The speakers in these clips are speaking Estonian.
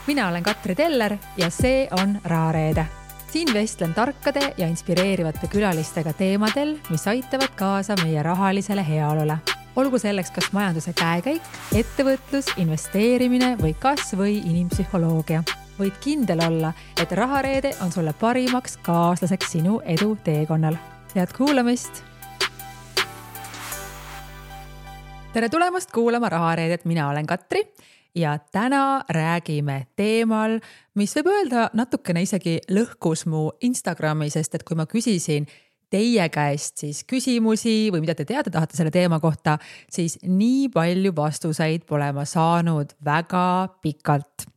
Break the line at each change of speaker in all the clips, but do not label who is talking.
Mina olen Katri Teller ja see on Rahareede. Siin vestlen tarkade ja inspireerivate külalistega teemadel, mis aitavad kaasa meie rahalisele heaolule. Olgu selleks kas majanduse käekäik, ettevõtlus, investeerimine või kas või inimpsühholoogia. Võid kindel olla, et Rahareede on sulle parimaks kaaslaseks sinu edu teekonnal. Head kuulamist! Tere tulemast kuulama Rahareedet, mina olen Katri. Ja täna räägime teemal, mis võib öelda natukene isegi lõhkus mu Instagrami, sest et kui ma küsisin teie käest siis küsimusi või mida te teada tahate selle teema kohta, siis nii palju vastuseid pole ma saanud väga pikalt.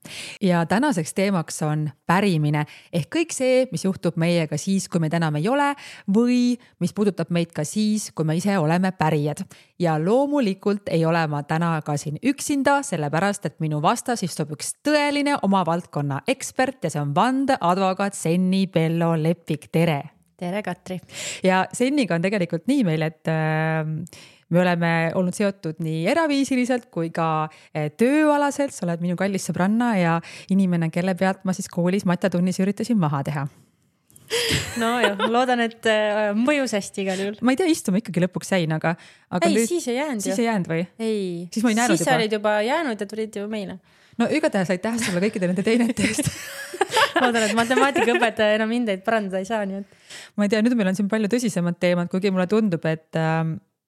Ja tänaseks teemaks on pärimine ehk kõik see, mis juhtub meiega siis, kui meid enam ei ole või mis puudutab meid ka siis, kui me ise oleme pärijad. Ja loomulikult ei ole ma täna ka siin üksinda, sellepärast et minu vastas istub üks tõeline oma valdkonna ekspert ja see on vandeadvokaat Senni Bello Lepik. Tere!
Tere, Katri!
Ja Senniga on tegelikult nii meil, et me oleme olnud seotud nii eraviisiliselt kui ka tööalaselt. Sa oled minu kallis sõbranna ja inimene, kelle pealt ma siis koolis matjatunnis üritasin maha teha.
No jah, loodan, et mõjus hästi igal juhul.
Ma ei tea, istume ikkagi lõpuks jäin, aga
ei, nüüd, siis ei jäänud.
Siis ei jäänud või?
Ei,
siis ma ei näinud
siis olid juba jäänud ja tulid ju meile.
No igatahes aitäh sulle kõikide nende teinete eest.
Loodan, et matemaatikaõpetaja enam hindeid parandada ei saa, nii et.
Ma ei tea, nüüd meil on siin palju tõsisemad teemad, kuigi mulle tundub, et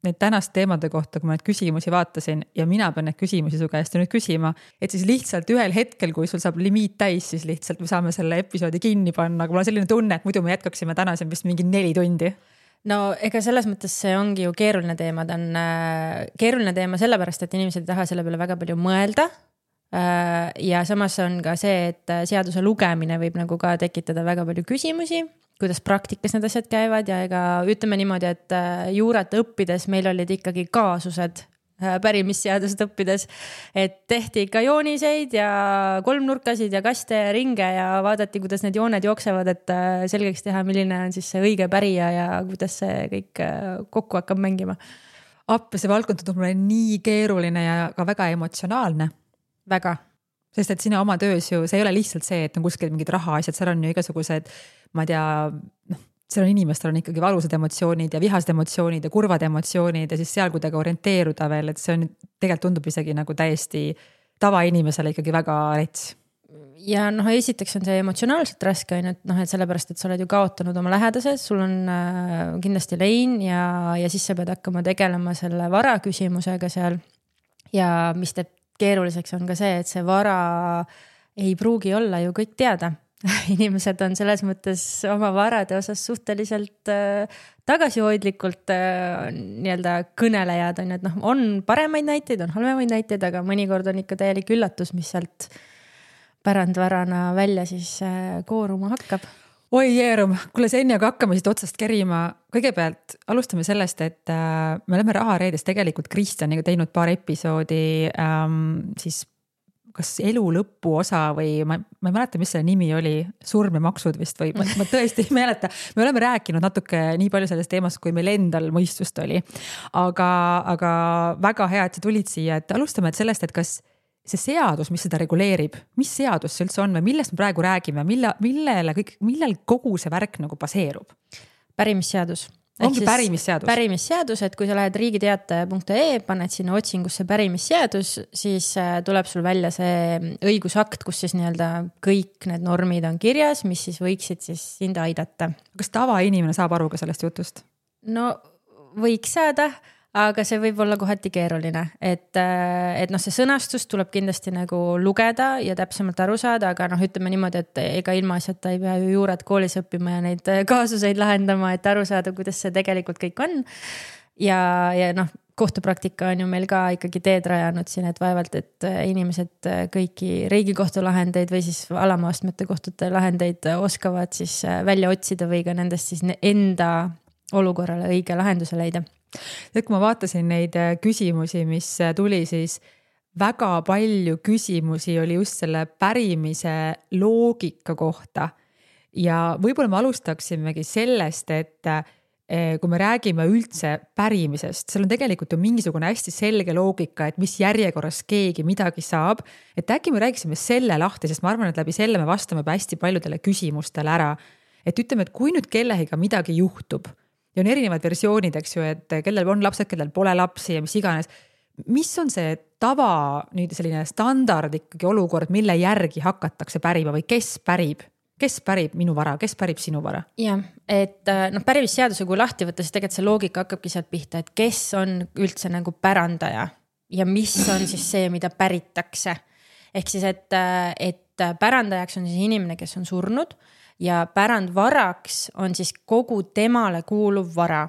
need tänast teemade kohta, kui ma need küsimusi vaatasin ja mina pean need küsimusi su käest nüüd küsima, et siis lihtsalt ühel hetkel, kui sul saab limiit täis, siis lihtsalt me saame selle episoodi kinni panna, aga mul on selline tunne, et muidu me jätkaksime täna siin vist mingi 4 tundi.
No ega selles mõttes see ongi ju keeruline teema. Ta on keeruline teema sellepärast, et inimesed ei taha selle peale väga palju mõelda. Ja samas on ka see, et seaduse lugemine võib nagu ka tekitada väga palju küsimusi, kuidas praktikas need asjad käivad ja ega ütleme niimoodi, et juurat õppides meil olid ikkagi kaasused pärimisseadust õppides, et tehti ikka jooniseid ja kolmnurkasid ja kaste ja ringe ja vaadati, kuidas need jooned jooksevad, et selgeks teha, milline on siis see õige pärija ja kuidas see kõik kokku hakkab mängima.
Appi, see valdkond tundub mulle nii keeruline ja ka väga emotsionaalne.
Väga.
Sest et sina oma töös ju, see ei ole lihtsalt see, et on kuskil mingid rahaasjad, seal on ju igasugused, ma ei tea, seal on inimestel on ikkagi valusad emotsioonid ja vihased emotsioonid ja kurvad emotsioonid ja siis seal kuidagi orienteeruda veel, et see on tegelikult tundub isegi nagu täiesti tavainimesele ikkagi väga rets.
Ja esiteks on see emotsionaalselt raske, et sellepärast, et sa oled ju kaotanud oma lähedased, sul on kindlasti lein ja siis sa pead hakkama tegelema selle vara küsimusega seal ja mis teeb keeruliseks on ka see, et see vara ei pruugi olla ju kõik teada. Inimesed on selles mõttes oma varade osas suhteliselt tagasihoidlikult nii-öelda kõnelejad on, et on paremaid näiteid, on halvemaid näiteid, aga mõnikord on ikka täielik üllatus, mis sealt pärandvarana välja siis kooruma hakkab.
Oi jeerum, kuule Senni, aga hakkame siit otsast kerima. Kõigepealt alustame sellest, et me oleme Rahareedes tegelikult Kristjaniga teinud paar episoodi siis kas elu lõpu osa või ma ei mäleta, mis selle nimi oli, surm ja maksud vist või ma tõesti ei mäleta. Me oleme rääkinud natuke nii palju sellest teemast, kui meil endal mõistust oli. Aga väga hea, et sa tulid siia, et alustame sellest, et kas see seadus, mis seda reguleerib, mis seadus see üldse on või millest me praegu räägime, millel kogu see värk nagu baseerub?
Pärimisseadus.
Ongi pärimisseadus?
Pärimisseadus, et kui sa lähed riigiteataja.ee, paned sinna otsingusse pärimisseadus, siis tuleb sul välja see õigusakt, kus siis nii-öelda kõik need normid on kirjas, mis siis võiksid siis sind aidata.
Kas tavainimene saab aru ka sellest jutust?
No võiks saada, aga see võib olla kohati keeruline, et see sõnastus tuleb kindlasti nagu lugeda ja täpsemalt aru saada, aga ütleme niimoodi, et ega ilma asjata ei pea ju juurat koolis õppima ja neid kaasuseid lahendama, et aru saada, kuidas see tegelikult kõik on. Ja kohtupraktika on ju meil ka ikkagi teed rajanud siin, et vaevalt, et inimesed kõiki riigikohtu lahendeid või siis alamaastmete kohtute lahendeid oskavad siis välja otsida või ka nendest siis enda olukorrale õige lahenduse leida.
Et kui ma vaatasin neid küsimusi, mis tuli, siis väga palju küsimusi oli just selle pärimise loogika kohta. Ja võib-olla me alustaksimegi sellest, et kui me räägime üldse pärimisest, seal on tegelikult ju mingisugune hästi selge loogika, et mis järjekorras keegi midagi saab. Et äkki me räägiksime selle lahti, sest ma arvan, et läbi selle me vastame hästi paljudele küsimustele ära. Et ütleme, et kui nüüd kellegiga midagi juhtub ja on erinevad versioonid, eks ju, et kellel on lapsed, kellel pole lapsi ja mis iganes. Mis on see tava nüüd selline standard ikkagi olukord, mille järgi hakatakse pärima või kes pärib? Kes pärib minu vara, kes pärib sinu vara?
Jah, et pärimisseaduse kui lahti võtta, siis tegelikult see loogika hakkabki sealt pihta, et kes on üldse nagu pärandaja ja mis on siis see, mida päritakse. Ehk siis, et pärandajaks on siis inimene, kes on surnud ja pärandvaraks on siis kogu temale kuuluv vara.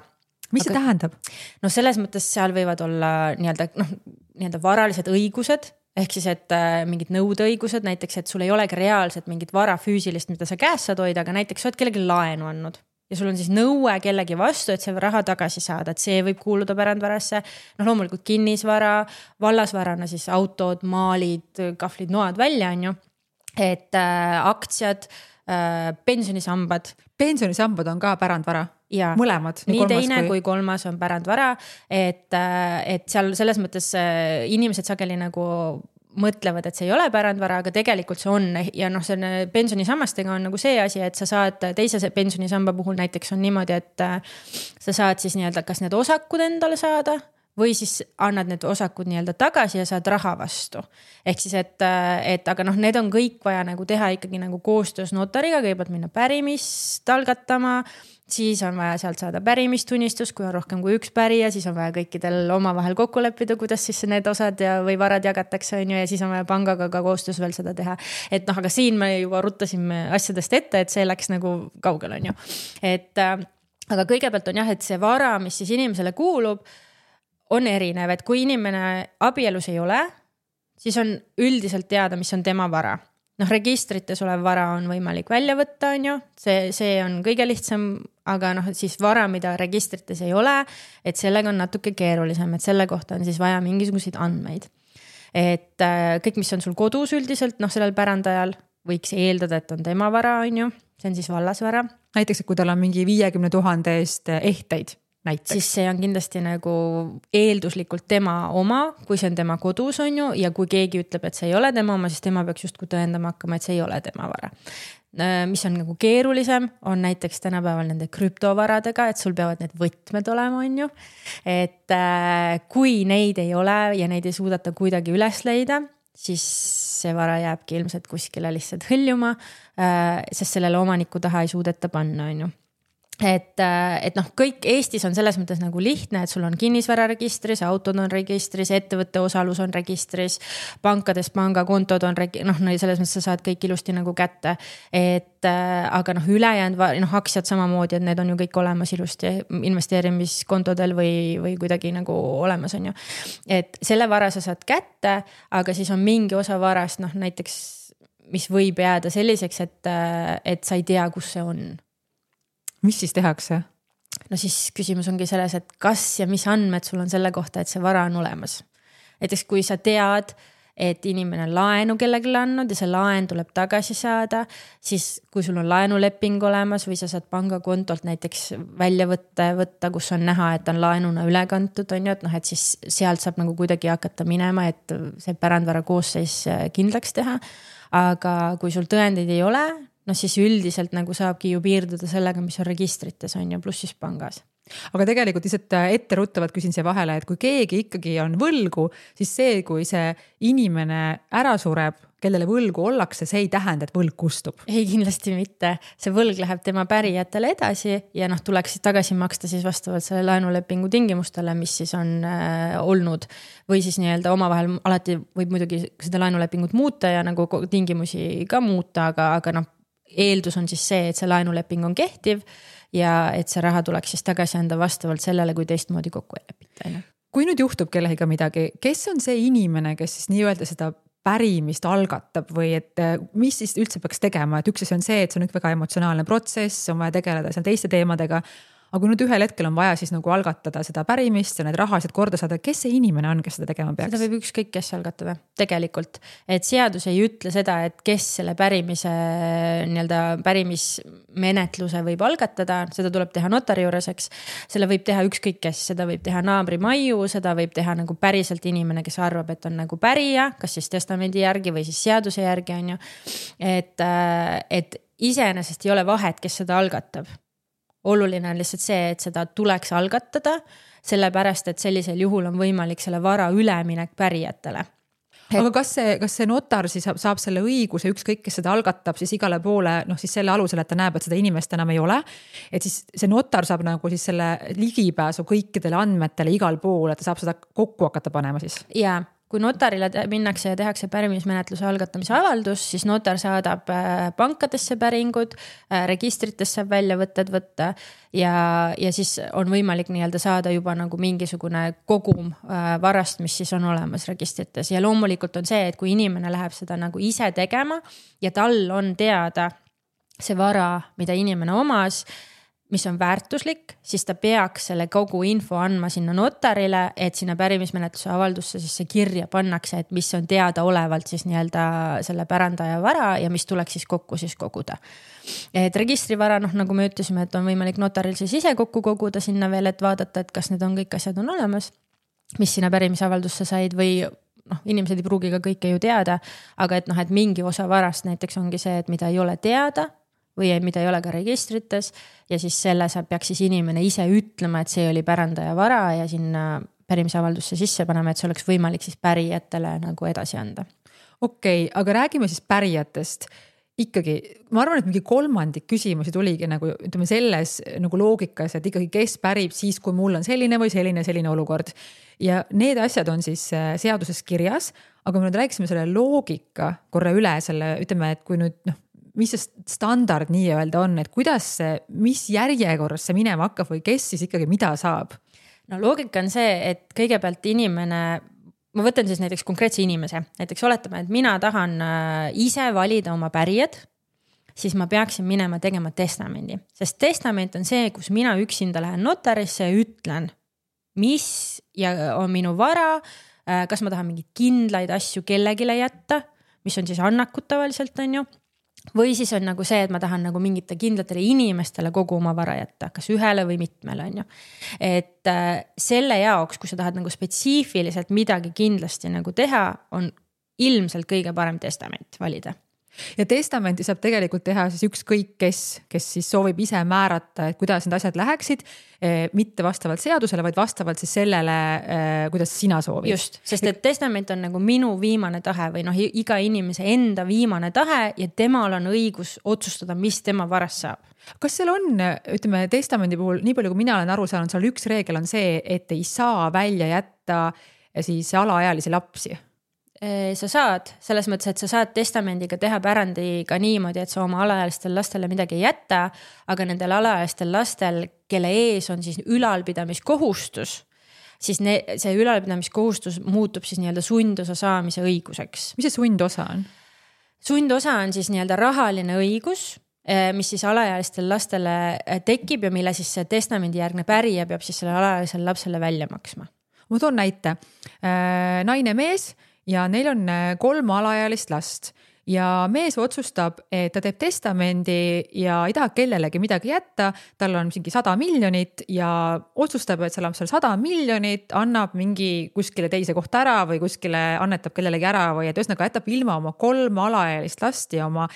Mis see tähendab?
No selles mõttes seal võivad olla nii-öelda varalised õigused, ehk siis, et mingid nõudeõigused, näiteks, et sul ei olegi reaalselt mingit vara füüsilist, mida sa käes saad hoida, aga näiteks sa oled kellegi laenu andnud ja sul on siis nõue kellegi vastu, et see raha tagasi saada, et see võib kuuluda pärandvarasse. Loomulikult kinnisvara, vallasvarana siis autod, maalid, kahvlid, noad välja on ju, et aktsiad, pensionisambad.
Pensionisambad on ka pärandvara?
Ja,
mõlemad,
nii teine kui kolmas on pärandvara, et seal selles mõttes inimesed sageli nagu mõtlevad, et see ei ole pärandvara, aga tegelikult see on ja see pensionisammastega on nagu see asi, et sa saad teise pensionisamba puhul näiteks on niimoodi, et sa saad siis nii-öelda kas need osakud endale saada või siis annad need osakud nii-öelda tagasi ja saad raha vastu. Ehk siis, et aga need on kõik vaja nagu teha ikkagi nagu koostöös notariga, kõigepealt minna pärimist algatama, siis on vaja sealt saada pärimistunnistus, kui on rohkem kui üks pärija, siis on vaja kõikidel omavahel kokku leppida, kuidas siis need osad või varad jagatakse on ju, ja siis on vaja pangaga ka koostöös veel seda teha. Et aga siin me juba ruttasime asjadest ette, et see läks nagu kaugel on ju. Aga kõigepealt on jah, et see vara, mis siis inimesele kuulub, on erinev, et kui inimene abielus ei ole, siis on üldiselt teada, mis on tema vara. Registrites olev vara on võimalik välja võtta, on ju, see on kõige lihtsam, aga siis vara, mida registrites ei ole, et sellega on natuke keerulisem, et selle kohta on siis vaja mingisuguseid andmeid. Et kõik, mis on sul kodus üldiselt, sellel pärandajal võiks eeldada, et on tema vara, on ju, see on siis vallasvara.
Näiteks, kui tal on mingi 50 000 eest ehteid. Näiteks.
Siis see on kindlasti nagu eelduslikult tema oma, kui see on tema kodus on ju, ja kui keegi ütleb, et see ei ole tema oma, siis tema peaks justkui tõendama hakkama, et see ei ole tema vara. Mis on nagu keerulisem, on näiteks tänapäeval nende krüptovaradega, et sul peavad need võtmed olema, on ju. Et kui neid ei ole ja neid ei suudata kuidagi üles leida, siis see vara jääbki ilmselt kuskile lihtsalt hõljuma, sest sellele omaniku taha ei suudeta panna, on ju. Et kõik Eestis on selles mõttes nagu lihtne, et sul on kinnisvararegistris, autod on registris, ettevõtte osalus on registris, pankades pangakontod on selles mõttes sa saad kõik ilusti nagu kätte. Aga ülejäänud aktsiad samamoodi, et need on ju kõik olemas ilusti investeerimiskontodel või kuidagi nagu olemas on ju. Et selle vara sa saad kätte, aga siis on mingi osa varast näiteks, mis võib jääda selliseks, et sa ei tea, kus see on.
Mis siis tehakse?
Siis küsimus ongi selles, et kas ja mis andmed sul on selle kohta, et see vara on olemas. Näiteks kui sa tead, et inimene on laenu kellelegi andnud ja see laen tuleb tagasi saada, siis kui sul on laenuleping olemas või sa saad pangakontolt näiteks välja võtta, kus on näha, et on laenuna üle kantud, on ju, et siis sealt saab nagu kuidagi hakata minema, et see pärandvara koosseis kindlaks teha. Aga kui sul tõendeid ei ole, siis üldiselt nagu saabki ju piirduda sellega, mis on registrites on ju, pluss siis pangas.
Aga tegelikult lihtsalt etteruttavalt küsin siia vahele, et kui keegi ikkagi on võlgu, siis see, kui see inimene ära sureb, kellele võlgu ollakse, see ei tähenda, et võlg kustub.
Ei, kindlasti mitte. See võlg läheb tema pärijatele edasi ja tuleks tagasi maksta siis vastavalt selle laenulepingu tingimustele, mis siis on olnud. Või siis nii-öelda omavahel alati võib muidugi seda laenulepingut muuta ja nagu tingimusi ka muuta, aga eeldus on siis see, et see laenuleping on kehtiv ja et see raha tuleks siis tagasi anda vastavalt sellele, kui teistmoodi kokku ei lepita.
Kui nüüd juhtub kellegiga midagi, kes on see inimene, kes siis nii-öelda seda pärimist algatab või et mis siis üldse peaks tegema, et üks asi on see, et see on väga emotsionaalne protsess, on vaja tegeleda seal teiste teemadega, aga kui nüüd ühel hetkel on vaja siis nagu algatada seda pärimist ja need rahalised korda saada, kes see inimene on, kes seda tegema peaks?
Seda võib ükskõik kes algatada tegelikult, et seadus ei ütle seda, et kes selle pärimismenetluse võib algatada, seda tuleb teha notari juures, eks. Selle võib teha ükskõik kes, seda võib teha naabri maiu, seda võib teha nagu päriselt inimene, kes arvab, et on nagu pärija, kas siis testamendi järgi või siis seaduse järgi on ju. Et iseenesest ei ole vahet, kes seda algatab. Oluline on lihtsalt see, et seda tuleks algatada, sellepärast, et sellisel juhul on võimalik selle vara üleminek pärijatele.
Aga kas see notar siis saab selle õiguse ükskõik, kes seda algatab siis igale poole, siis selle alusel, et ta näeb, et seda inimest enam ei ole. Et siis see notar saab nagu siis selle ligipääsu kõikidele andmetele igal pool, et ta saab seda kokku hakata panema siis.
Jaa. Kui notarile minnakse ja tehakse pärimismenetluse algatamise avaldus, siis notar saadab pankadesse päringud, registritesse saab väljavõtted võtta ja siis on võimalik nii-öelda saada juba nagu mingisugune kogum varast, mis siis on olemas registrites. Ja loomulikult on see, et kui inimene läheb seda nagu ise tegema ja tal on teada see vara, mida inimene omas, mis on väärtuslik, siis ta peaks selle kogu info andma sinna notarile, et sinna pärimismenetluse avaldusse siis see kirja pannakse, et mis on teada olevalt siis nii-öelda selle pärandaja vara ja mis tuleks siis kokku siis koguda. Et registrivara, nagu me ütlesime, et on võimalik notaril siis ise kokku koguda sinna veel, et vaadata, et kas need on kõik asjad on olemas, mis sinna pärimisavaldusse said või inimesed ei pruugi ka kõike ju teada, aga et mingi osa varast näiteks ongi see, et mida ei ole teada, või mida ei ole ka registrites ja siis selle peaks siis inimene ise ütlema, et see oli pärandaja vara ja sinna pärimisavaldusse sisse panema, et see oleks võimalik siis pärijatele nagu edasi anda.
Okei, aga räägime siis pärijatest. Ikkagi, ma arvan, et mingi kolmandik küsimusi tuligi nagu, ütleme selles nagu loogikas, et ikkagi kes pärib siis, kui mul on selline või selline olukord. Ja need asjad on siis seaduses kirjas, aga me nüüd rääkisime selle loogika korra üle selle, ütleme, et kui nüüd mis see standard nii öelda on, et kuidas see, mis järjekorras see minema hakkab või kes siis ikkagi mida saab?
No loogika on see, et kõigepealt inimene, ma võtan siis näiteks konkreetse inimese, näiteks oletame, et mina tahan ise valida oma pärijad, siis ma peaksin minema tegema testamendi, sest testament on see, kus mina üksinda lähen notarisse ja ütlen, mis on minu vara, kas ma tahan mingid kindlaid asju kellegile jätta, mis on siis annakud tavaliselt on ju. Või siis on nagu see, et ma tahan nagu mingite kindlatele inimestele kogu oma vara jätta, kas ühele või mitmele on ju. Et selle jaoks, kui sa tahad nagu spetsiifiliselt midagi kindlasti nagu teha, on ilmselt kõige parem testament valida.
Ja testamenti saab tegelikult teha siis ükskõik kes siis soovib ise määrata, et kuidas need asjad läheksid, mitte vastavalt seadusele, vaid vastavalt siis sellele, kuidas sina soovid.
Just, sest et testament on nagu minu viimane tahe või iga inimese enda viimane tahe ja temal on õigus otsustada, mis tema varast saab.
Kas seal on, ütleme, testamendi puhul, nii palju kui mina olen aru saanud, seal üks reegel on see, et ei saa välja jätta siis alaealisi lapsi.
Sa saad, selles mõttes, et sa saad testamendiga teha pärandiga niimoodi, et sa oma alaealistel lastele midagi ei jätta, aga nendel alaealistel lastel, kelle ees on siis ülalpidamiskohustus, siis see ülalpidamiskohustus muutub siis nii-öelda sundosa saamise õiguseks.
Mis see sundosa on?
Sundosa on siis nii-öelda rahaline õigus, mis siis alaealistel lastele tekib ja mille siis see testamendi järgne pärija peab siis selle alaealisele lapsele välja maksma.
Ma toon näite. Naine mees ja neil on 3 alaealist last ja mees otsustab, et ta teeb testamendi ja ei taha kellelegi midagi jätta, tal on mingi 100 miljonit ja otsustab, et seal 100 miljonit annab mingi kuskile teise kohta ära või kuskile annetab kellelegi ära või et ühesõnaga jätab ilma oma 3 alaealist last ja oma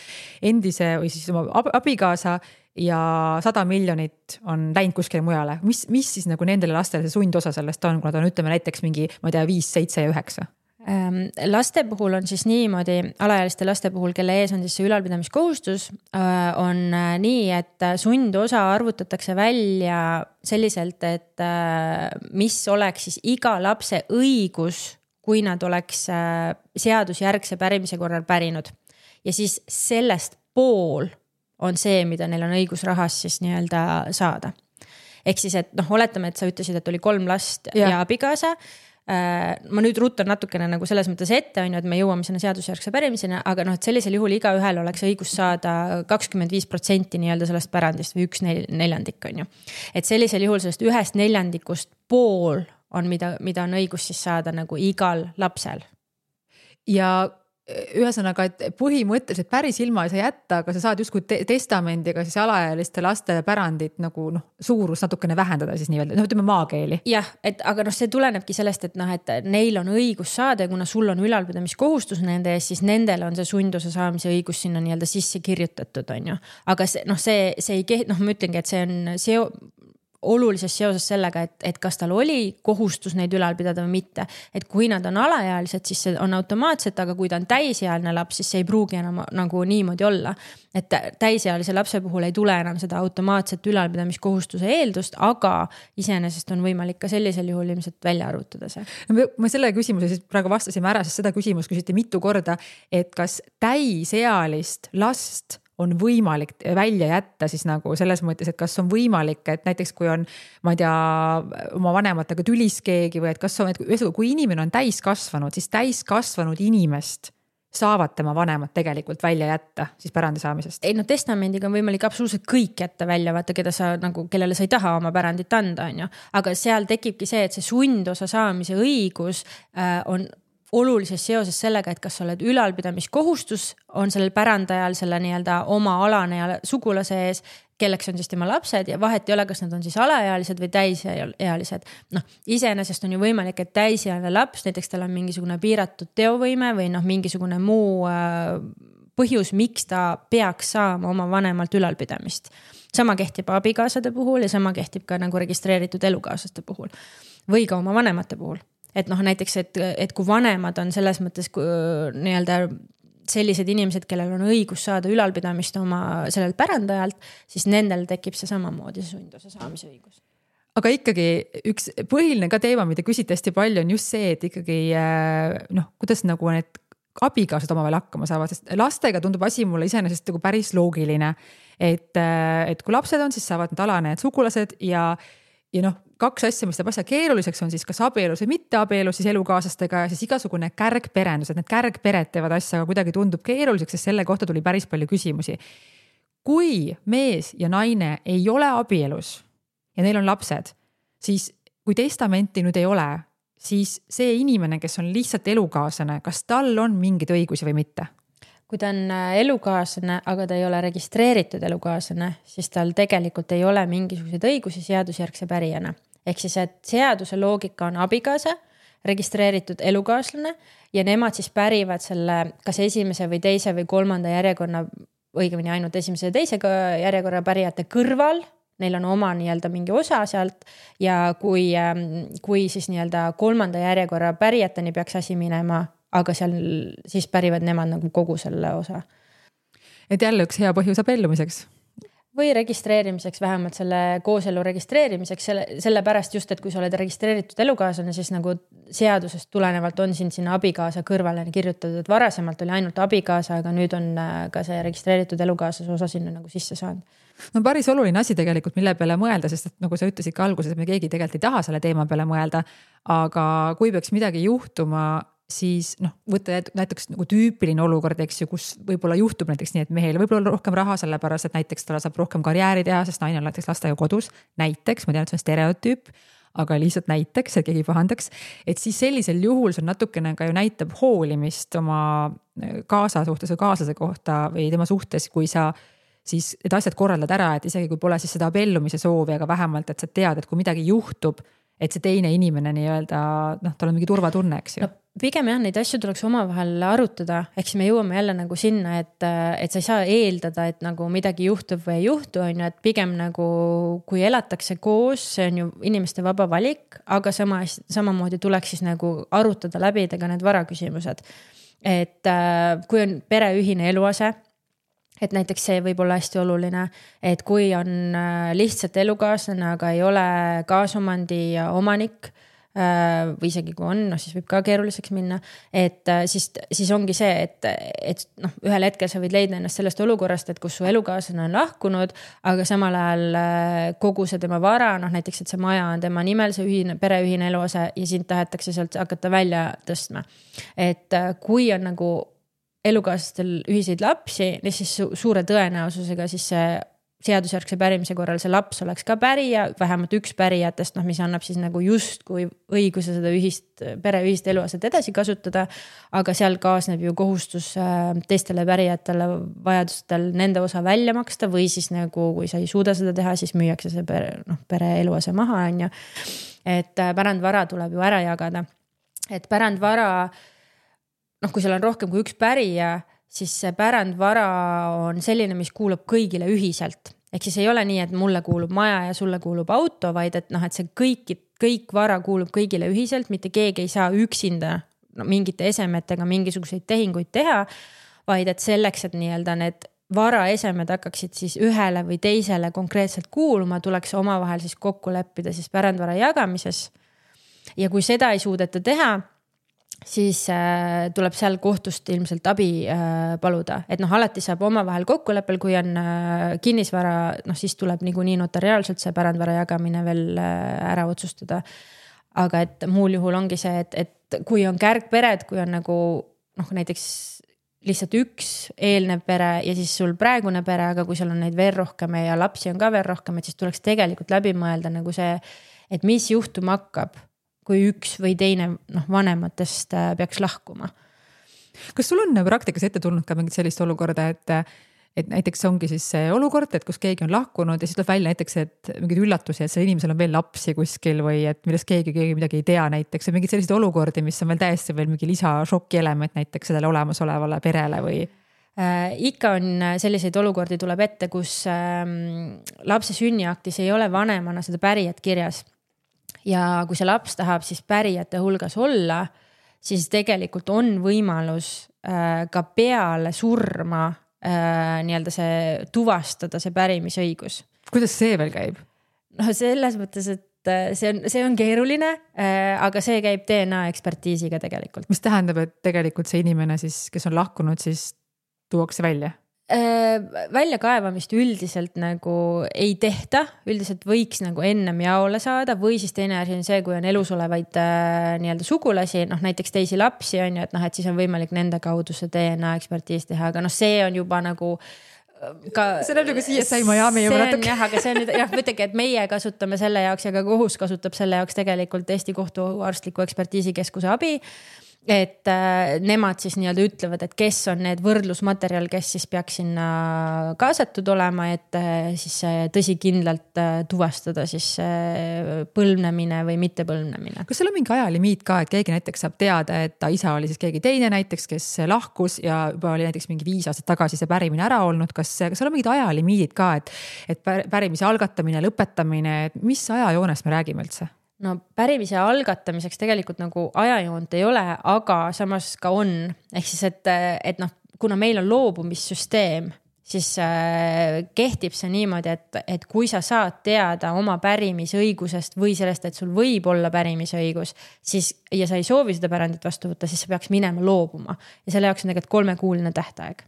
endise või siis oma abikaasa ja 100 miljonit on läinud kuskile mujale. Mis siis nagu nendele lastele see sundosa sellest on, kui nad on ütleme näiteks mingi, ma ei tea, 5, 7 ja 9?
Laste puhul on siis niimoodi, alaealiste laste puhul, kelle ees on siis see ülalpidamiskohustus, on nii, et sundosa arvutatakse välja selliselt, et mis oleks siis iga lapse õigus, kui nad oleks seadusjärgse pärimise korral pärinud. Ja siis sellest pool on see, mida neil on õigus rahas siis nii-öelda saada. Ehk siis, et oletame, et sa ütlesid, et oli 3 last ja abikaasa, ma nüüd ruttan natukene nagu selles mõttes ette, on ju, et me jõuame sinna seadusjärgse pärimisena, aga noh, et sellisel juhul iga ühel oleks õigus saada 25% nii-öelda sellest pärandist või 1/4, on ju. Et sellisel juhul sellest 1/4 pool on, mida on õigus siis saada nagu igal lapsel.
Ja ühesõnaga, et põhimõtteliselt päris ilma ei saa jätta, aga sa saad justkui testamendiga siis alaealiste laste pärandit nagu suurus natukene vähendada siis nii-öelda, ütleme maakeeli.
Jah, aga see tulenebki sellest, et et neil on õigus saada ja kuna sul on ülalpidamiskohustus nende ees, siis nendel on see sundosa saamise õigus sinna nii-öelda sisse kirjutatud, on ju. Aga see ei ma ütlengi, et see on olulises seoses sellega, et kas tal oli kohustus neid ülal pidada või mitte. Et kui nad on alaealised, siis see on automaatselt, aga kui ta on täisealine laps, siis see ei pruugi enam nagu niimoodi olla. Et täisealise lapse puhul ei tule enam seda automaatset ülalpidamiskohustuse eeldust, aga iseenesest on võimalik ka sellisel juhul ilmselt välja arvutada see.
Ma selle küsimuse siis praegu vastasime ära, sest seda küsimust küsiti mitu korda, et kas täisealist last on võimalik välja jätta siis nagu selles mõttes, et kas on võimalik, et näiteks kui on, ma ei tea, oma vanematega tülis keegi või et kas on, et kui inimene on täiskasvanud, siis täiskasvanud inimest saavad tema vanemad tegelikult välja jätta siis pärandi saamisest.
Ei, testamendiga on võimalik absoluutselt kõik jätta välja, vaata, kellele sa ei taha oma pärandit anda, on ju. Aga seal tekibki see, et see sundosa saamise õigus on olulises seoses sellega, et kas sa oled ülalpidamiskohustus on sellel pärandajal selle nii-öelda oma alane ja sugulase ees, kelleks on siis tema lapsed ja vahet ei ole, kas nad on siis alaealised või täisealised. Iseenesest on ju võimalik, et täisealine laps, näiteks tal on mingisugune piiratud teovõime või mingisugune muu põhjus, miks ta peaks saama oma vanemalt ülalpidamist. Sama kehtib abikaasade puhul ja sama kehtib ka nagu registreeritud elukaaslaste puhul või ka oma vanemate puhul. Et näiteks, et kui vanemad on selles mõttes nii-öelda sellised inimesed, kellel on õigus saada ülalpidamist oma sellel pärandajalt, siis nendel tekib see samamoodi sundosa saamise õigus.
Aga ikkagi üks põhiline ka teema, mida küsiti hästi palju, on just see, et ikkagi kuidas nagu need abikaasad omavahel hakkama saavad, sest lastega tundub asi mulle iseenesest nagu päris loogiline, et kui lapsed on, siis saavad need alanejad sugulased ja kaks asja, mis teeb asja keeruliseks, on siis kas abielus või mitte abielus siis elukaaslastega ja siis igasugune kärgperendus, et need kärgpered teevad asja, aga kuidagi tundub keeruliseks, sest selle kohta tuli päris palju küsimusi. Kui mees ja naine ei ole abielus ja neil on lapsed, siis kui testamenti nüüd ei ole, siis see inimene, kes on lihtsalt elukaaslane, kas tal on mingeid õigusi või mitte?
Kui ta on elukaaslane, aga ta ei ole registreeritud elukaaslane, siis tal tegelikult ei ole mingisuguseid õigusi seadusjärgse pärijana. Ehk siis, et seaduse loogika on abikaasa, registreeritud elukaaslane ja nemad siis pärivad selle kas esimese või teise või kolmanda järjekorra, õigemini ainult esimese ja teise järjekorra pärijate kõrval, neil on oma nii-öelda mingi osa sealt ja kui siis nii-öelda kolmanda järjekorra pärijateni peaks asi minema, aga seal siis pärivad nemad nagu kogu selle osa.
Et jälle üks hea põhjus abiellumiseks.
Või registreerimiseks, vähemalt selle kooselu registreerimiseks, selle pärast just, et kui sa oled registreeritud elukaaslane, siis nagu seadusest tulenevalt on sinna abikaasa kõrvale kirjutatud, et varasemalt oli ainult abikaasa, aga nüüd on ka see registreeritud elukaaslase osa sinna nagu sisse saanud.
Päris oluline asi tegelikult, mille peale mõelda, sest et nagu sa ütlesid ka alguses, et me keegi tegelikult ei taha selle teema peale mõelda, aga kui peaks midagi juhtuma, siis võtta näiteks nagu tüüpiline olukord, eks ju, kus võib-olla juhtub näiteks nii, et mehel võib-olla rohkem raha, sellepärast, et näiteks ta saab rohkem karjääri teha, sest naine on näiteks lastega kodus, näiteks, ma tean, et see on stereotüüp, aga lihtsalt näiteks, et keegi pahandaks, et siis sellisel juhul see natukene ka ju näitab hoolimist oma kaasa suhtes või kaaslase kohta või tema suhtes, kui sa siis need asjad korraldad ära, et isegi kui pole siis seda abiellumise soovi, aga vähemalt, et sa tead, et kui midagi juhtub, et see teine inimene nii-öelda, tal on mingi turvatunne, eks ju.
Pigem jah, neid asju tuleks omavahel arutada, ehk siis me jõuame jälle nagu sinna, et sa ei saa eeldada, et nagu midagi juhtub või ei juhtu, on ju, et pigem nagu kui elatakse koos, see on ju inimeste vaba valik, aga samamoodi tuleks siis nagu arutada läbi ka need varaküsimused. Et kui on pereühine eluase, et näiteks see võib olla hästi oluline, et kui on lihtsalt elukaaslane, aga ei ole kaasomandi omanik, või isegi kui on, siis võib ka keeruliseks minna, et siis ongi see, et ühel hetkel sa võid leida ennast sellest olukorrast, et kus su elukaaslane on lahkunud, aga samal ajal kogu see tema vara, näiteks, et see maja on tema nimel, see pereühine eluase ja sind tahetakse sealt hakata välja tõstma. Et kui on nagu elukaaslastel ühiseid lapsi, siis suure tõenäosusega siis see seadusjärgse pärimise korral see laps oleks ka pärija, vähemalt üks pärijatest, mis annab siis nagu justkui õiguse seda pereühist eluaset edasi kasutada, aga seal kaasneb ju kohustus teistele pärijatele vajadustel nende osa välja maksta või siis nagu, kui sa ei suuda seda teha, siis müüakse see pere eluase maha, on ju. Et pärandvara tuleb ju ära jagada. Et pärandvara, kui seal on rohkem kui üks pärija, siis see pärandvara on selline, mis kuulub kõigile ühiselt. Ehk siis ei ole nii, et mulle kuulub maja ja sulle kuulub auto, vaid et see kõik vara kuulub kõigile ühiselt, mitte keegi ei saa üksinda mingite esemetega mingisuguseid tehinguid teha, vaid et selleks, et nii-öelda need varaesemed hakkaksid siis ühele või teisele konkreetselt kuuluma, tuleks omavahel siis kokku leppida siis pärandvara jagamises. Ja kui seda ei suudeta teha, siis tuleb seal kohtust ilmselt abi paluda. Et alati saab omavahel kokkuleppel, kui on kinnisvara, siis tuleb niikuinii notariaalselt see pärandvara jagamine veel ära otsustada. Aga et muul juhul ongi see, et kui on kärgpered, kui on nagu näiteks lihtsalt üks eelnev pere ja siis sul praegune pere, aga kui seal on neid veel rohkem ja lapsi on ka veel rohkem, et siis tuleks tegelikult läbi mõelda nagu see, et mis juhtuma hakkab, kui üks või teine vanematest peaks lahkuma.
Kas sul on praktikas ette tulnud ka mingit sellist olukorda, et näiteks ongi siis see olukord, et kus keegi on lahkunud ja siis tuleb välja näiteks, et mingid üllatusi, et selle inimesel on veel lapsi kuskil või et millest keegi midagi ei tea näiteks või mingid sellised olukordi, mis on veel täiesti veel mingi lisašoki element näiteks sellele olemasolevale perele või?
Ikka on selliseid olukordi tuleb ette, kus lapse sünniaktis ei ole vanemana seda pärijat kirjas. Ja kui see laps tahab siis pärijate hulgas olla, siis tegelikult on võimalus ka peale surma nii-öelda see tuvastada see pärimisõigus.
Kuidas see veel käib?
Selles mõttes, et see on keeruline, aga see käib DNA ekspertiisiga tegelikult.
Mis tähendab, et tegelikult see inimene siis, kes on lahkunud, siis tuuakse välja?
Väljakaevamist üldiselt nagu ei tehta, üldiselt võiks nagu ennem jaole saada või siis teine asi on see, kui on elus olevaid nii-öelda sugulasi, näiteks teisi lapsi on ju, et siis on võimalik nende kaudu see DNA ekspertiis teha, aga see on juba nagu ka,
see näeb nagu CSI Miami juba natuke.
Jah, aga see on nüüd, mõtlegi, et meie kasutame selle jaoks ja ka kohus kasutab selle jaoks tegelikult Eesti kohtuarstliku ekspertiisikeskuse abi. Et nemad siis nii-öelda ütlevad, et kes on need võrdlusmaterjal, kes siis peaks sinna kaasatud olema, et siis tõsikindlalt tuvastada siis põlvnemine või mitte põlvnemine.
Kas seal on mingi ajalimiit ka, et keegi näiteks saab teada, et ta isa oli siis keegi teine näiteks, kes lahkus ja juba oli näiteks mingi 5 aastat tagasi see pärimine ära olnud, kas seal on mingid ajalimiidid ka, et pärimise algatamine, lõpetamine, et mis ajajoonest me räägime üldse?
No pärimise algatamiseks tegelikult nagu ajajoont ei ole, aga samas ka on. Ehk siis, et kuna meil on loobumissüsteem, siis kehtib see niimoodi, et kui sa saad teada oma pärimisõigusest või sellest, et sul võib olla pärimisõigus, siis, ja sa ei soovi seda pärandit vastu võtta, siis sa peaks minema loobuma. Ja selle jaoks on tegelikult 3-kuuline tähtaeg.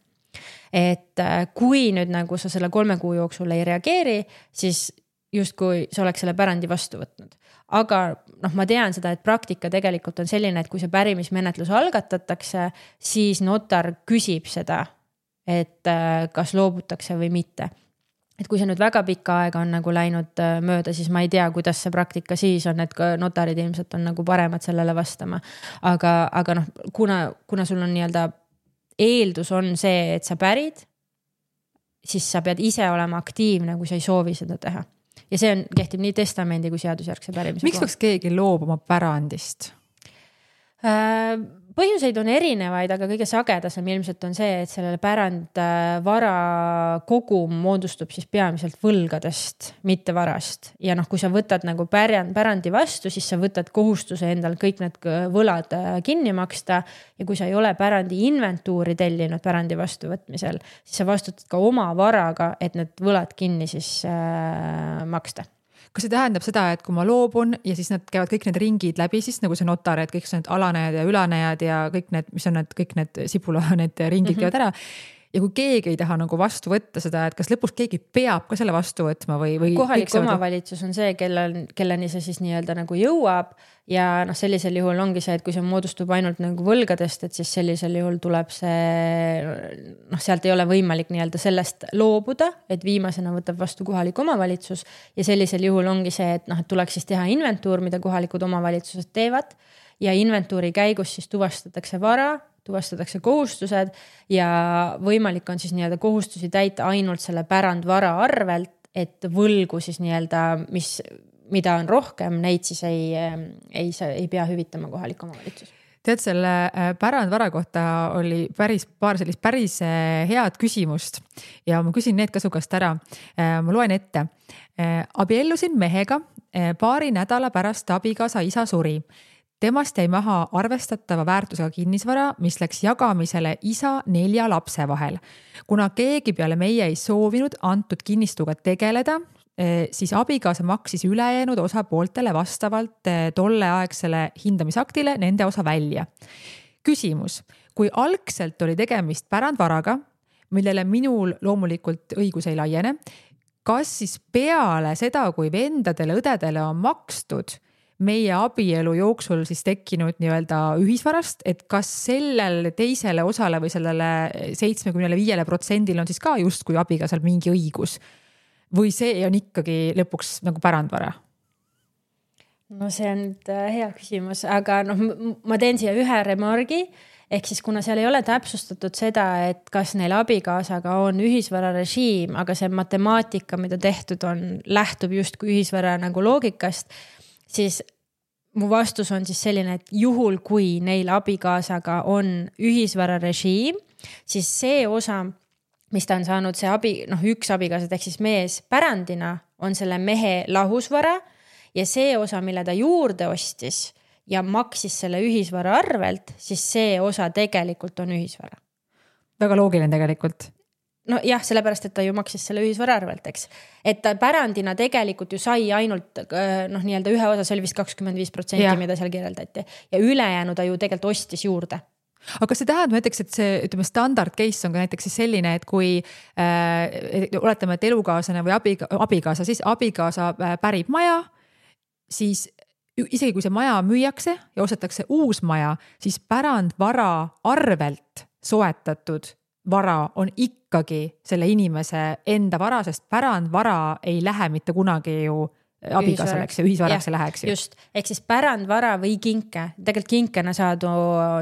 Et kui nüüd nagu sa selle 3 kuu jooksul ei reageeri, siis justkui sa oleks selle pärandi vastu võtnud. Aga ma tean seda, et praktika tegelikult on selline, et kui see pärimismenetlus algatatakse, siis notar küsib seda, et kas loobutakse või mitte. Et kui see nüüd väga pikka aega on nagu läinud mööda, siis ma ei tea, kuidas see praktika siis on, et notarid ilmselt on nagu paremad sellele vastama. Aga kuna sul on nii-öelda eeldus on see, et sa pärid, siis sa pead ise olema aktiivne, kui sa ei soovi seda teha. Ja see kehtib nii testamendi kui seadusjärgse pärimise.
Miks peaks keegi loobuma pärandist?
Põhjuseid on erinevaid, aga kõige sagedasem ilmselt on see, et sellele pärandvara kogum moodustub siis peamiselt võlgadest, mitte varast. Ja kui sa võtad nagu pärandi vastu, siis sa võtad kohustuse endal kõik need võlad kinni maksta. Ja kui sa ei ole pärandi inventuuri tellinud pärandi vastuvõtmisel, siis sa vastutad ka oma varaga, et need võlad kinni siis maksta.
kas see tähendab seda, et kui ma loobun ja siis nad käivad kõik need ringid läbi, siis nagu see notar, et kõik need alanejad ja ülanejad ja kõik need, mis on need, kõik need sibula, need ringid käivad ära. Ja kui keegi ei taha nagu vastu võtta seda, et kas lõpuks keegi peab ka selle vastu võtma või
kohalik omavalitsus on see, kelleni see siis nii-öelda nagu jõuab ja noh, sellisel juhul ongi see, et kui see moodustub ainult nagu võlgadest, et siis sellisel juhul tuleb see, noh, sealt ei ole võimalik nii-öelda sellest loobuda, et viimasena võtab vastu kohalik omavalitsus ja sellisel juhul ongi see, et noh, et tuleks siis teha inventuur, mida kohalikud omavalitsused teevad ja inventuuri käigus siis tuvastatakse vara, tuvastatakse kohustused ja võimalik on siis nii-öelda kohustusi täita ainult selle pärandvara arvelt, et võlgu siis nii-öelda, mida on rohkem, neid siis ei pea hüvitama kohalik omavalitsus.
Tead, selle pärandvara kohta oli paar sellist päris head küsimust ja ma küsin need ka su käest ära. Ma loen ette. Abiellusin mehega paari nädala pärast abikaasa isa suri. Temast jäi maha arvestatava väärtusega kinnisvara, mis läks jagamisele isa 4 lapse vahel. Kuna keegi peale meie ei soovinud antud kinnistuga tegeleda, siis abikaasa maksis ülejäänud osapooltele vastavalt tolleaegsele hindamisaktile nende osa välja. Küsimus, kui algselt oli tegemist pärandvaraga, millele minul loomulikult õigus ei laiene, kas siis peale seda, kui vendadele, õdedele on makstud meie abielu jooksul siis tekkinud nii-öelda ühisvarast, et kas sellel teisele osale või sellele 75% on siis ka justkui abikaasal mingi õigus või see on ikkagi lõpuks nagu pärandvara?
No see on hea küsimus, aga noh, ma teen siia ühe remargi, ehk siis kuna seal ei ole täpsustatud seda, et kas neil abikaasaga on ühisvara režiim, aga see matemaatika, mida tehtud on, lähtub justkui ühisvara nagu loogikast, siis mu vastus on siis selline, et juhul kui neil abikaasaga on ühisvara režiim, siis see osa, mis ta on saanud, see üks abikaasad ehk siis mees pärandina on selle mehe lahusvara ja see osa, mille ta juurde ostis ja maksis selle ühisvara arvelt, siis see osa tegelikult on ühisvara.
Väga loogiline tegelikult.
No jah, sellepärast, et ta ju maksis selle ühisvara arvelt, eks. Et ta pärandina tegelikult ju sai ainult nii-öelda ühe osa, see oli vist 25%, mida seal kirjeldati. Ja ülejäänu ta ju tegelikult ostis juurde.
Aga kas see tähendab näiteks, et see ütleme, standard case on ka näiteks siis selline, et kui oletame, et elukaaslane või abikaasa, siis abikaasa pärib maja, siis isegi kui see maja müüakse ja ostetakse uus maja, siis pärandvara arvelt soetatud vara on ikkagi selle inimese enda vara, sest pärandvara ei lähe mitte kunagi ju abikaaseks ja ühisvaraks läheks ju.
Just, ehk siis pärandvara või kinke. Tegelikult kinkena saadu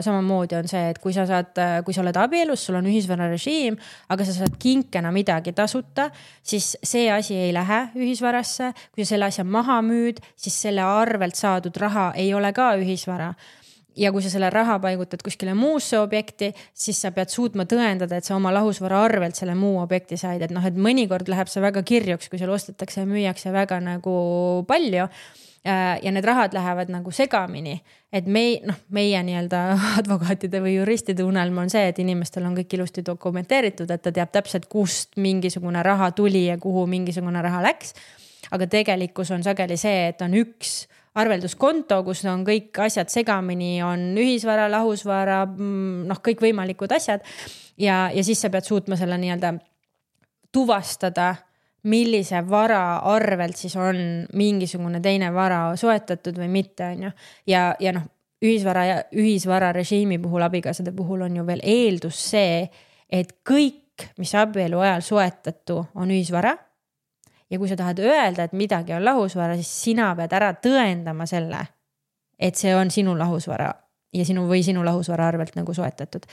samamoodi on see, et kui sa oled abielus, sul on ühisvara režiim, aga sa saad kinkena midagi tasuta, siis see asi ei lähe ühisvarasse. Kui sa selle asja maha müüd, siis selle arvelt saadud raha ei ole ka ühisvara. Ja kui sa selle raha paigutad kuskile muusse objekti, siis sa pead suutma tõendada, et sa oma lahusvara arvelt selle muu objekti said. Et et mõnikord läheb see väga kirjuks, kui seal ostetakse ja müüakse väga nagu palju ja need rahad lähevad nagu segamini. Et meie nii-öelda advokaatide või juristide unelm on see, et inimestel on kõik ilusti dokumenteeritud, et ta teab täpselt, kust mingisugune raha tuli ja kuhu mingisugune raha läks. Aga tegelikkus on sageli see, et on üks arvelduskonto, kus on kõik asjad segamini, on ühisvara, lahusvara, kõik võimalikud asjad. Ja siis sa pead suutma selle nii-öelda tuvastada, millise vara arvelt siis on mingisugune teine vara soetatud või mitte. Ja ühisvara režiimi puhul, abikaasade puhul on ju veel eeldus see, et kõik, mis abielu ajal soetatu, on ühisvara. Ja kui sa tahad öelda, et midagi on lahusvara, siis sina pead ära tõendama selle, et see on sinu lahusvara ja sinu lahusvara arvelt nagu soetatud.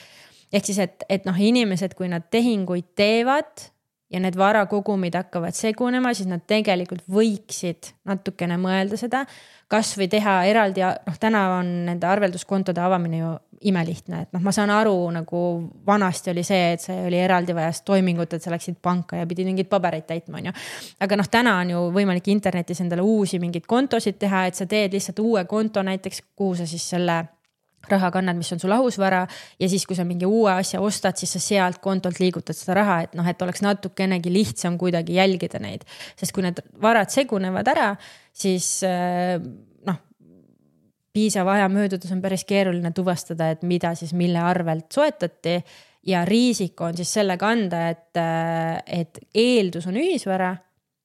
Ehk siis, et inimesed, kui nad tehinguid teevad ja need varakogumid hakkavad segunema, siis nad tegelikult võiksid natukene mõelda seda, kas või teha eraldi, täna on nende arvelduskontode avamine ju imelihtne, et ma saan aru, nagu vanasti oli see, et see oli eraldi vajas toimingut, et sa läksid panka ja pidid mingid pabereid täitma, on ju. Aga täna on ju võimalik internetis endale uusi mingid kontosid teha, et sa teed lihtsalt uue konto näiteks, kuhu sa siis selle rahakannad, mis on su lahusvara ja siis, kui sa mingi uue asja ostad, siis sa sealt kontolt liigutad seda raha, et noh, et oleks natukenegi lihtsam kuidagi jälgida neid. Sest kui need varad segunevad ära, siis noh, piisava aja möödudes on päris keeruline tuvastada, et mida siis mille arvelt soetati ja riisik on siis selle kanda, et eeldus on ühisvara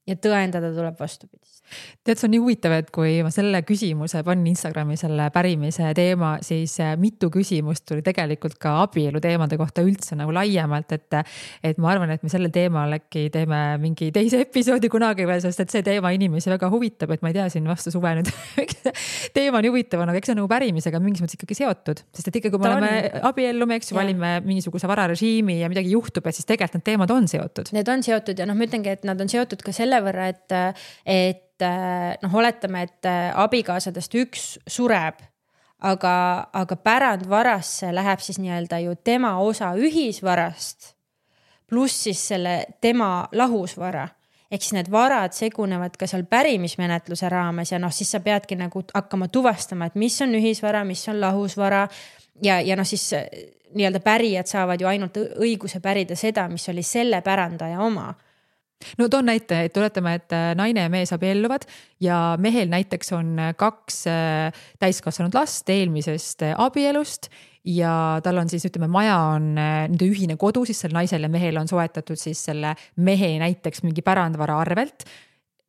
ja tõendada tuleb vastupidist.
Tead, see on nii huvitav, et kui ma selle küsimuse panin Instagrami selle pärimise teema, siis mitu küsimust tuli tegelikult ka abielu teemade kohta üldse nagu laiemalt, et ma arvan, et me selle teemal äkki teeme mingi teise episoodi kunagi veel, sest et see teema inimesi väga huvitab, et ma ei tea, siin vastu suve nüüd teema on huvitav, aga eks see on nagu pärimisega mingis mõttes ikkagi seotud, sest et ikkagi kui me oleme abiellume, eks ju, valime mingisuguse vararežiimi ja midagi juhtub, et siis tegelikult need teemad on seotud.
Need on seotud ja noh, ma ütlengi, et nad on seotud ka selle võrra, et noh, oletame, et abikaasadest üks sureb, aga pärandvarasse läheb siis nii-öelda ju tema osa ühisvarast pluss siis selle tema lahusvara. Ehk siis need varad segunevad ka seal pärimismenetluse raames ja noh, siis sa peadki nagu hakkama tuvastama, et mis on ühisvara, mis on lahusvara ja noh, siis nii-öelda pärijad saavad ju ainult õiguse pärida seda, mis oli selle pärandaja oma.
No toon näite, et tuletame, et naine ja mees abielluvad ja mehel näiteks on 2 täiskasvanud last eelmisest abielust ja tal on siis, ütleme, maja on nende ühine kodu, siis selle naisel ja mehel on soetatud siis selle mehe näiteks mingi pärandvara arvelt.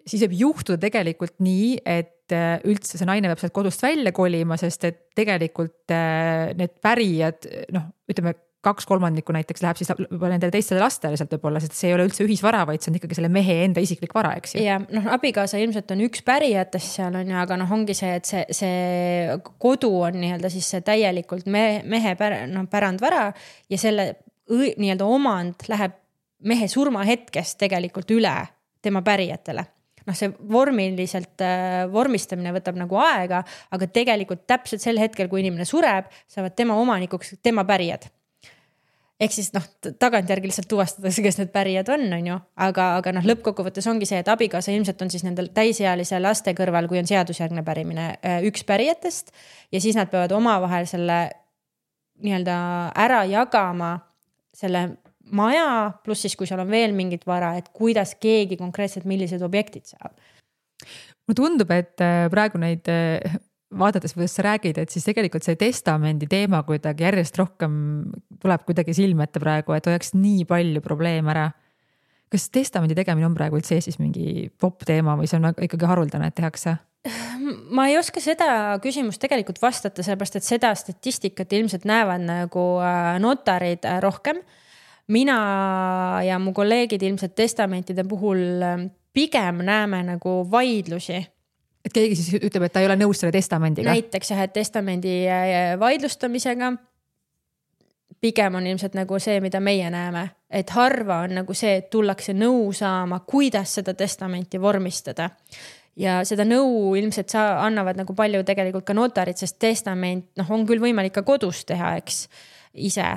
Siis võib juhtuda tegelikult nii, et üldse see naine peab sealt kodust välja kolima, sest et tegelikult need pärijad, noh, ütleme, 2/3 näiteks läheb siis nendele teistele lastele sealt võib-olla, sest see ei ole üldse ühisvara, vaid see on ikkagi selle mehe enda isiklik vara, eks ju.
Ja noh, abikaasa ilmselt on üks pärijatest seal on ju, aga noh, ongi see, et see kodu on nii-öelda siis see täielikult mehe pärandvara ja selle nii-öelda omand läheb mehe surmahetkest tegelikult üle tema pärijatele. Noh, see vormiliselt vormistamine võtab nagu aega, aga tegelikult täpselt sel hetkel, kui inimene sureb, saavad tema omanikuks tema pärijad. Ehk siis noh, tagantjärgi lihtsalt tuvastatakse, kes need pärijad on ju, aga noh, lõppkokkuvõttes ongi see, et abikaasa ilmselt on siis nendel täisealise laste kõrval, kui on seadusjärgne pärimine, üks pärijatest ja siis nad peavad omavahel selle nii-öelda ära jagama selle maja, pluss siis, kui seal on veel mingit vara, et kuidas keegi konkreetselt millised objektid saab.
Mulle tundub, et praegu neid vaadates, kuidas sa räägid, et siis tegelikult see testamendi teema kuidagi järjest rohkem tuleb kuidagi silme ette praegu, et oleks nii palju probleeme ära. Kas testamendi tegemine on praegu üldse Eestis mingi popp teema või see on ikkagi haruldane, et tehakse?
Ma ei oska seda küsimust tegelikult vastata, sellepärast, et seda statistikat ilmselt näevad nagu notarid rohkem. Mina ja mu kolleegid ilmselt testamentide puhul pigem näeme nagu vaidlusi.
Et keegi siis ütleb, et ta ei ole nõus selle testamendiga.
Näiteks jah, et testamendi vaidlustamisega pigem on ilmselt nagu see, mida meie näeme. Et harva on nagu see, et tullakse nõu saama, kuidas seda testamenti vormistada. Ja seda nõu ilmselt annavad nagu palju tegelikult ka notarid, sest testament on küll võimalik ka kodus teha, eks ise,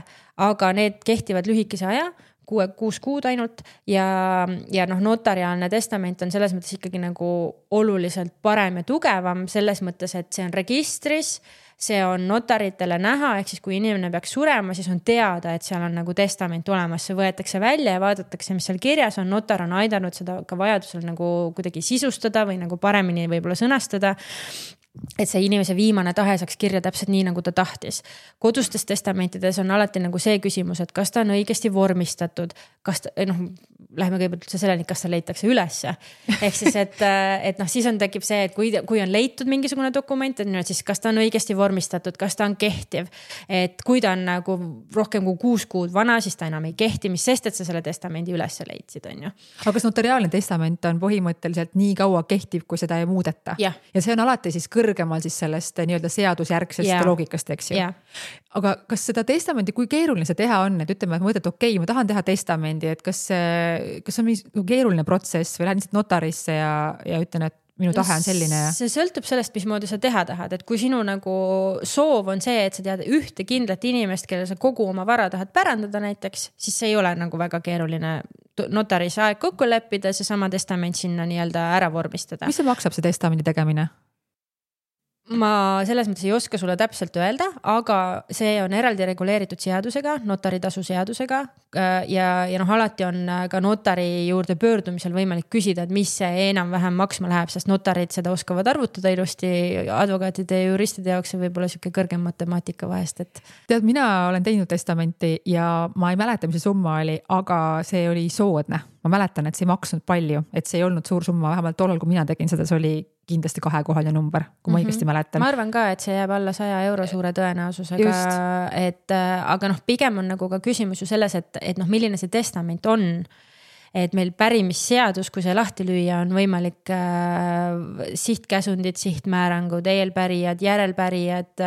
aga need kehtivad lühikese aja, 6 kuud ainult ja noh, notariaalne testament on selles mõttes ikkagi nagu oluliselt parem ja tugevam selles mõttes, et see on registris, see on notaritele näha, ehk siis kui inimene peaks surema, siis on teada, et seal on nagu testament olemas, see võetakse välja ja vaadatakse, mis seal kirjas on, notar on aidanud seda ka vajadusel nagu kuidagi sisustada või nagu paremini võib-olla sõnastada, et see inimese viimane tahe saaks kirja täpselt nii, nagu ta tahtis. Kodustes testamentides on alati nagu see küsimus, et kas ta on õigesti vormistatud, kas ta, läheme kõigepealt üldse selleni, kas ta leitakse ülesse. Ehk siis, et noh, siis tekib see, et kui on leitud mingisugune dokument, siis kas ta on õigesti vormistatud, kas ta on kehtiv, et kui ta on nagu rohkem kui 6 kuud vana, siis ta enam ei kehti, mis sest, et sa selle testamendi ülesse leidsid, on ju.
Aga kas notariaalne testament on põhimõtteliselt nii kaua kehtiv, kui seda ei muudeta? Ja see on alati siis kõrgemal siis sellest nii-öelda seadusjärgsest loogikast, eks ju. Aga kas seda testamendi, kui keeruline see teha on, et ütleme, et mõtled, okei, ma tahan teha testamendi, et kas on mingi keeruline protsess või lähen lihtsalt notarisse ja ütlen, et minu tahe on selline?
See sõltub sellest, mismoodi sa teha tahad, et kui sinu nagu soov on see, et sa tead ühte kindlat inimest, kellel sa kogu oma vara tahad pärandada näiteks, siis see ei ole nagu väga keeruline notaris aeg kokku leppida, see sama testament sinna nii-öelda ära vormistada.
Mis see maksab, see testamendi tegemine?
ma selles mõttes ei oska sulle täpselt öelda, aga see on eraldi reguleeritud seadusega, notaritasu seadusega ja alati on ka notari juurde pöördumisel võimalik küsida, et mis see enam-vähem maksma läheb, sest notarid seda oskavad arvutada ilusti, advokaatide ja juristide jaoks on võib-olla siuke kõrgem matemaatika vahest, et.
Tead, mina olen teinud testamenti ja ma ei mäleta, mis see summa oli, aga see oli soodne. Ma mäletan, et see ei maksnud palju, et see ei olnud suur summa, vähemalt tollal, kui mina tegin seda, see oli kindlasti 2-kohaline number, kui ma õigesti mäletan.
Ma arvan ka, et see jääb alla 100 euro suure tõenäosusega, et aga pigem on nagu ka küsimus ju selles, et milline see testament on. Et meil pärimisseadus, kui see lahti lüüa, on võimalik sihtkäsundid, sihtmäärangud, eelpärijad, järelpärijad,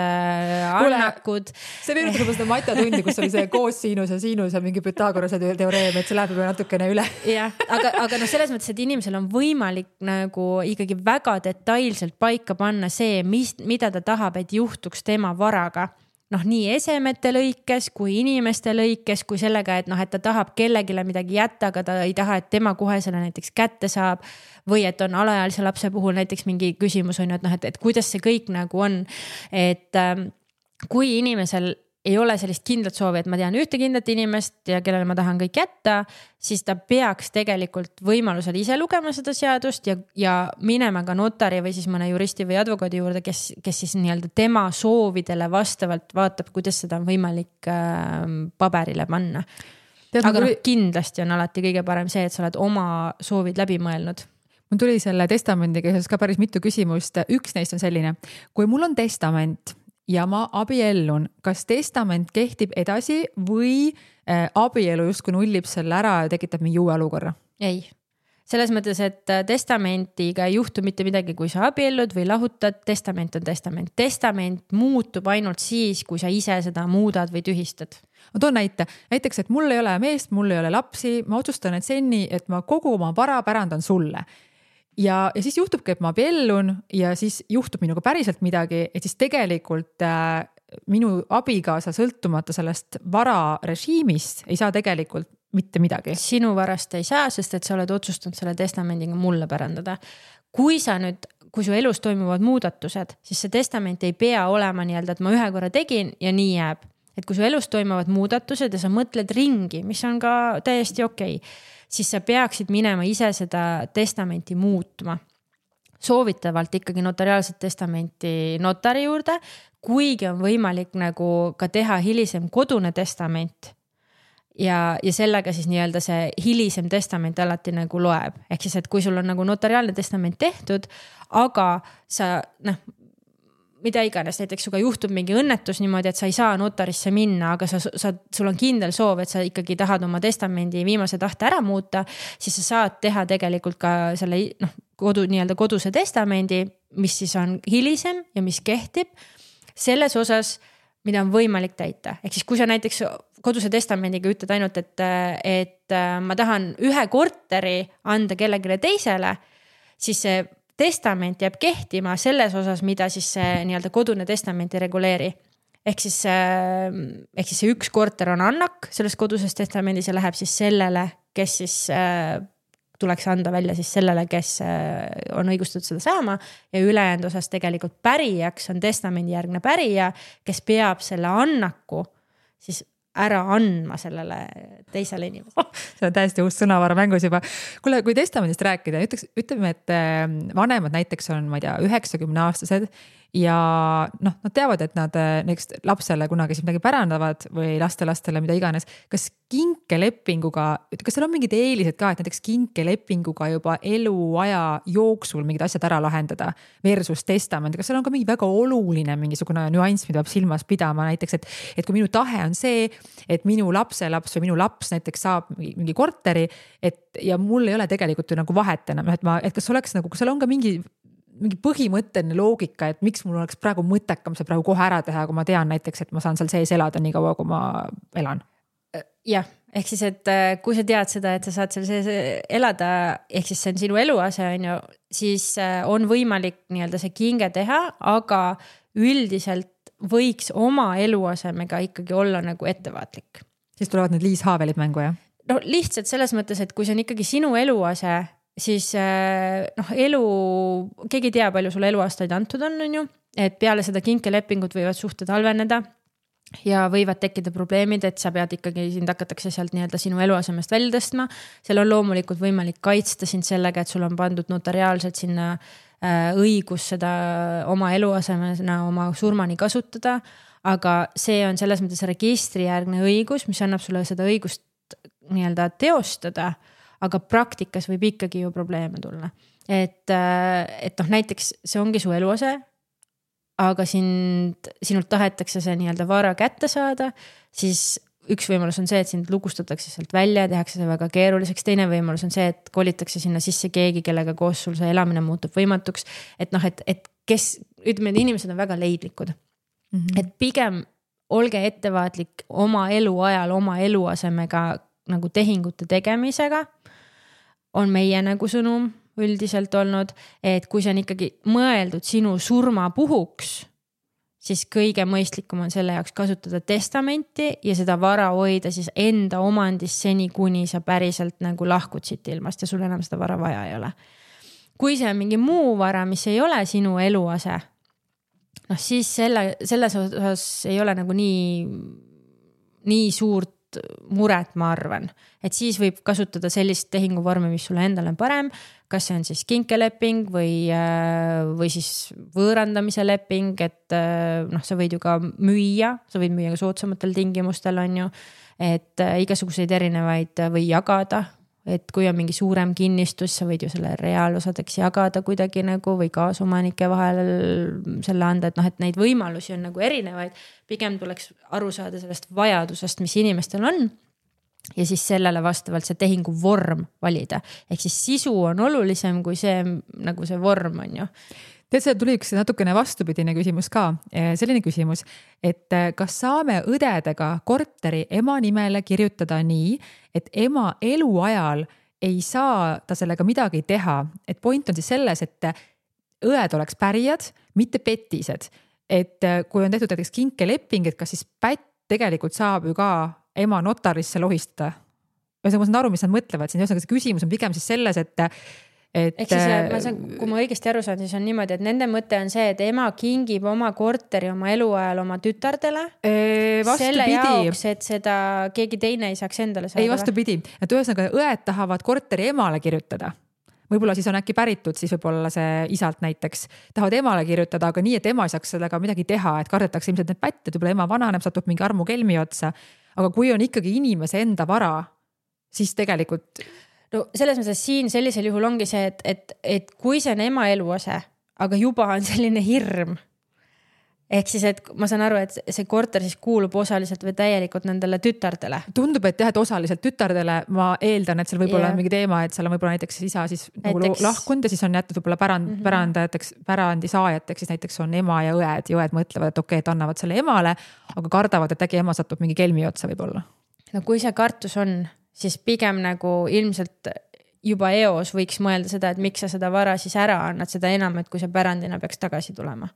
annakud.
See meenutab seda matjatundi, kus oli see koossinus ja siinus ja mingi Pythagorase teoreem, et see läheb juba natukene üle.
Jah, aga selles mõttes, et inimesel on võimalik nagu ikkagi väga detailselt paika panna see, mida ta tahab, et juhtuks tema varaga. Nii esemete lõikes kui inimeste lõikes, kui sellega, et ta tahab kellegile midagi jätta, aga ta ei taha, et tema kohe selle näiteks kätte saab või et on alaealise lapse puhul näiteks mingi küsimus on, et kuidas see kõik nagu on, et kui inimesel ei ole sellist kindlat soovi, et ma tean ühte kindlat inimest ja kellele ma tahan kõik jätta, siis ta peaks tegelikult võimalusel ise lugema seda seadust ja minema ka notari või siis mõne juristi või advokaadi juurde, kes siis nii-öelda tema soovidele vastavalt vaatab, kuidas seda on võimalik paberile panna. Aga kindlasti on alati kõige parem see, et sa oled oma soovid läbi mõelnud.
Mul tuli selle testamendiga ka päris mitu küsimust. Üks neist on selline, kui mul on testament ja ma abiellun, kas testament kehtib edasi või abielu justkui nullib selle ära ja tekitab mingi uue olukorra?
Ei. Selles mõttes, et testamentiga ei juhtu mitte midagi, kui sa abiellud või lahutad, testament on testament. Testament muutub ainult siis, kui sa ise seda muudad või tühistad.
Ma toon näiteks, et mul ei ole meest, mul ei ole lapsi, ma otsustan, et senni, et ma kogu oma vara pärandan sulle. Ja siis juhtubki, et ma abiellun ja siis juhtub minuga päriselt midagi, et siis tegelikult minu abikaasa sõltumata sellest vara režiimist ei saa tegelikult mitte midagi.
Sinu varast ei saa, sest et sa oled otsustanud selle testamendiga mulle pärandada. Kui su elus toimuvad muudatused, siis see testament ei pea olema nii-öelda, et ma ühe korra tegin ja nii jääb. Et kui su elus toimuvad muudatused ja sa mõtled ringi, mis on ka täiesti okei, siis sa peaksid minema ise seda testamenti muutma. Soovitavalt ikkagi notariaalset testamenti notari juurde, kuigi on võimalik nagu ka teha hilisem kodune testament ja sellega siis nii-öelda see hilisem testament alati nagu loeb. Ehk siis, et kui sul on nagu notariaalne testament tehtud, aga sa mida iganes, näiteks suga juhtub mingi õnnetus niimoodi, et sa ei saa notarisse minna, aga sul on kindel soov, et sa ikkagi tahad oma testamendi viimase tahte ära muuta, siis sa saad teha tegelikult ka selle nii-öelda koduse testamendi, mis siis on hilisem ja mis kehtib selles osas, mida on võimalik täita. Ehk siis kui sa näiteks koduse testamendiga ütled ainult, et ma tahan ühe korteri anda kellegile teisele, siis see testament jääb kehtima selles osas, mida siis see nii-öelda kodune testament ei reguleeri. Ehk siis see üks korter on annak selles koduses testamendis ja läheb siis sellele, kes siis tuleks anda välja siis sellele, kes on õigustatud seda saama ja ülejäänud osas tegelikult pärijaks on testamendi järgne pärija, kes peab selle annaku siis ära andma sellele teisele inimesele.
See on täiesti uus sõnavara mängus juba. Kuule, kui testamendist rääkida, ütleme, et vanemad näiteks on, ma ei tea, 90-aastased ja nad teavad, et nad näiteks lapsele kunagi midagi pärandavad või lastele mida iganes. Kas kinkelepinguga, kas seal on mingid eelised ka, et näiteks kinkelepinguga juba eluaja jooksul mingid asjad ära lahendada versus testament? Kas seal on ka mingi väga oluline mingisugune nüanss, mida peab silmas pidama näiteks, et kui minu tahe on see, et minu lapselaps või minu laps näiteks saab mingi korteri, ja mul ei ole tegelikult nagu vahet enam, et kas oleks nagu, kas seal on ka mingi põhimõtteline loogika, et miks mul oleks praegu mõttekam see praegu kohe ära teha, kui ma tean näiteks, et ma saan seal sees elada nii kaua, kui ma elan.
Jah, ehk siis, et kui sa tead seda, et sa saad seal sees elada, ehk siis see on sinu eluase, siis on võimalik nii-öelda see kinge teha, aga üldiselt võiks oma eluasemega ikkagi olla nagu ettevaatlik.
Siis tulevad need liishaavelid mängu, jah?
No lihtsalt selles mõttes, et kui see on ikkagi sinu eluase, siis keegi tea, palju sulle eluaastaid antud on ju. et peale seda kinkelepingut võivad suhted halveneda ja võivad tekkida probleemid, et sa pead ikkagi, sind hakatakse sealt nii-öelda sinu eluasemest välja tõstma. Seal on loomulikult võimalik kaitsta sind sellega, et sul on pandud notariaalselt sinna õigus seda oma eluasemena oma surmani kasutada, aga see on selles mõttes registrijärgne õigus, mis annab sulle seda õigust nii-öelda teostada, aga praktikas võib ikkagi ju probleeme tulla. Et näiteks see ongi su eluase, aga sinult tahetakse see nii-öelda vara kätte saada, siis üks võimalus on see, et sind lukustatakse sealt välja ja tehakse see väga keeruliseks. Teine võimalus on see, et kolitakse sinna sisse keegi, kellega koos sul see elamine muutub võimatuks. Et kes, ütleme, inimesed on väga leidlikud. Et pigem olge ettevaatlik oma elu ajal, oma eluasemega nagu tehingute tegemisega on meie nagu sõnum üldiselt olnud, et kui see on ikkagi mõeldud sinu surma puhuks, siis kõige mõistlikum on selle jaoks kasutada testamenti ja seda vara hoida siis enda omandis seni, kuni sa päriselt nagu lahkud siit ilmast ja sul enam seda vara vaja ei ole. Kui see on mingi muu vara, mis ei ole sinu eluase, siis selles osas ei ole nagu nii suurt muret, ma arvan. Et siis võib kasutada sellist tehinguvormi, mis sulle endale on parem, kas see on siis kinkeleping või siis võõrandamise leping, et sa võid ju ka müüa, sa võid müüa ka soodsamatel tingimustel, on ju, et igasuguseid erinevaid või jagada, et kui on mingi suurem kinnistus, sa võid ju selle reaalosadeks jagada kuidagi nagu või kaasomanike vahel selle anda, et neid võimalusi on nagu erinevaid, pigem tuleks aru saada sellest vajadusest, mis inimestel on ja siis sellele vastavalt see tehingu vorm valida. Ehk siis sisu on olulisem kui see, nagu see vorm on ju.
Tead, see tuli üks natukene vastupidine küsimus ka. Selline küsimus, et kas saame õdedega korteri ema nimele kirjutada nii, et ema eluajal ei saa ta sellega midagi teha. Et point on siis selles, et õed oleks pärijad, mitte petised. Et kui on tehtud näiteks kinkeleping, et kas siis pätt tegelikult saab ju ka ema notarisse lohistada. Ma saan aru, mis nad mõtlevad. See küsimus on pigem siis selles, et
kui ma õigesti aru saan, siis on niimoodi, et nende mõte on see, et ema kingib oma korteri oma eluajal oma tütardele selle jaoks, et seda keegi teine ei saaks endale saada.
Ei, vastupidi. Et ühesõnaga õed tahavad korteri emale kirjutada. Võib-olla siis on äkki päritud, siis võib-olla see isalt näiteks tahavad emale kirjutada, aga nii, et ema ei saaks sellega midagi teha, et kardetakse ilmselt need pätted, võib-olla ema vananeb, satub mingi armu kelmi otsa. Aga kui on ikkagi inimese enda vara, siis tegelikult...
No selles mõttes siin sellisel juhul ongi see, et kui see on ema eluase, aga juba on selline hirm, ehk siis, et ma saan aru, et see korter siis kuulub osaliselt või täielikult nendele tütardele.
Tundub, et jah, et osaliselt tütardele, ma eeldan, et seal võib olla mingi teema, et seal on võib-olla näiteks isa siis nagu lahkunud ja siis on jätud võib-olla pärandi saajateks, siis näiteks on ema ja õed mõtlevad, et okei, et annavad selle emale, aga kardavad, et äkki ema satub mingi kelmi otsa võib-olla.
No kui see kartus on, siis pigem nagu ilmselt juba eos võiks mõelda seda, et miks sa seda vara siis ära annad, seda enam, et kui see pärandina peaks tagasi tulema.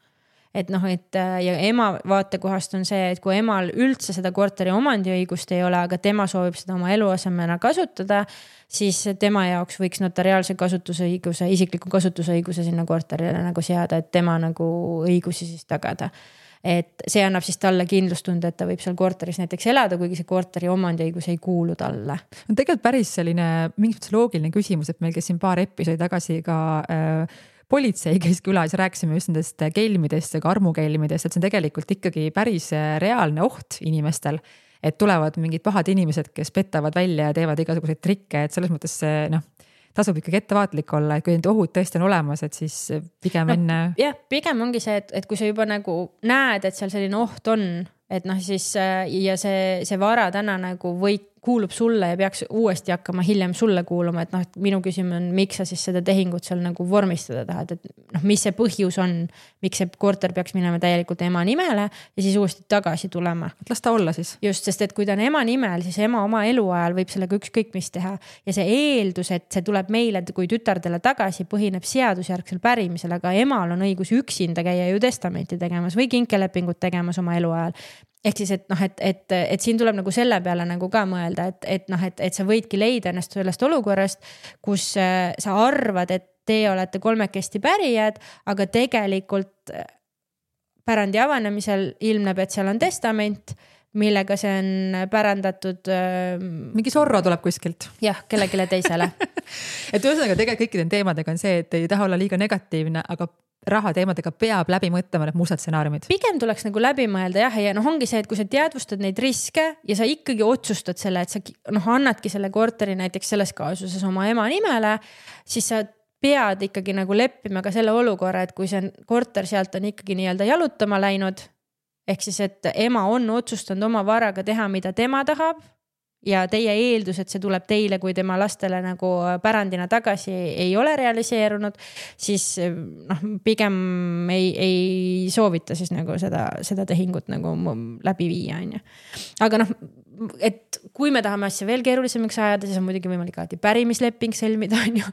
Et ja ema vaatekohast on see, et kui emal üldse seda korteri omandiõigust ei ole, aga tema soovib seda oma eluasemena kasutada, siis tema jaoks võiks notariaalse kasutusõiguse, isikliku kasutusõiguse sinna korterile nagu seada, et tema nagu õigusi siis tagada. Et see annab siis talle kindlustunde, et ta võib seal korteris näiteks elada, kuigi see korteri omandiõigus ei kuulu talle.
On tegelikult päris selline mingi loogiline küsimus, et meil käis siin paar episoodi tagasi ka politsei käis külas ja rääkisime just nendest kelmidest ja ka armukelmidest, et see on tegelikult ikkagi päris reaalne oht inimestel, et tulevad mingid pahad inimesed, kes petavad välja ja teevad igasuguseid trikke, et selles mõttes tasub ikkagi ettevaatlik olla, et kui need ohud tõesti on olemas, et siis pigem enne...
Jah, pigem ongi see, et kui sa juba nagu näed, et seal selline oht on, et siis ja see vara täna nagu kuulub sulle ja peaks uuesti hakkama hiljem sulle kuuluma, et minu küsimus on, miks sa siis seda tehingut seal nagu vormistada tahad, et mis see põhjus on, miks see korter peaks minema täielikult ema nimele ja siis uuesti tagasi tulema.
Las ta olla siis.
Just, sest et kui ta on ema nimel, siis ema oma eluajal võib sellega ükskõik mis teha ja see eeldus, et see tuleb meile kui tütardele tagasi, põhineb seadusjärgsel pärimisel, aga emal on õigus üksinda käia ju testamenti tegemas või kinkelepingut tegemas oma eluajal. Ehk siis, et siin tuleb nagu selle peale nagu ka mõelda, et sa võidki leida ennast sellest olukorrast, kus sa arvad, et te olete kolmekesti pärijad, aga tegelikult pärandi avanemisel ilmneb, et seal on testament, millega see on pärandatud.
Mingi Zorro tuleb kuskilt.
Jah, kellelegi teisele.
Et ühesõnaga tegelikult kõikide teemadega on see, et ei taha olla liiga negatiivne, aga raha teemadega peab läbi mõtlema need mustad stsenaariumid.
Pigem tuleks nagu läbi mõelda jah, ja ongi see, et kui sa teadvustad neid riske ja sa ikkagi otsustad selle, et sa annadki selle korteri näiteks selles kaasuses oma ema nimele, siis sa pead ikkagi nagu leppima ka selle olukorra, et kui see korter sealt on ikkagi nii-öelda jalutama läinud, ehk siis, et ema on otsustanud oma varaga teha, mida tema tahab ja teie eeldus, et see tuleb teile, kui tema lastele nagu pärandina tagasi ei ole realiseerunud, siis pigem ei soovita siis nagu seda tehingut nagu läbi viia, on ju. Aga et kui me tahame asja veel keerulisemaks ajada, siis on muidugi võimalik alati pärimisleping sõlmida, on ju.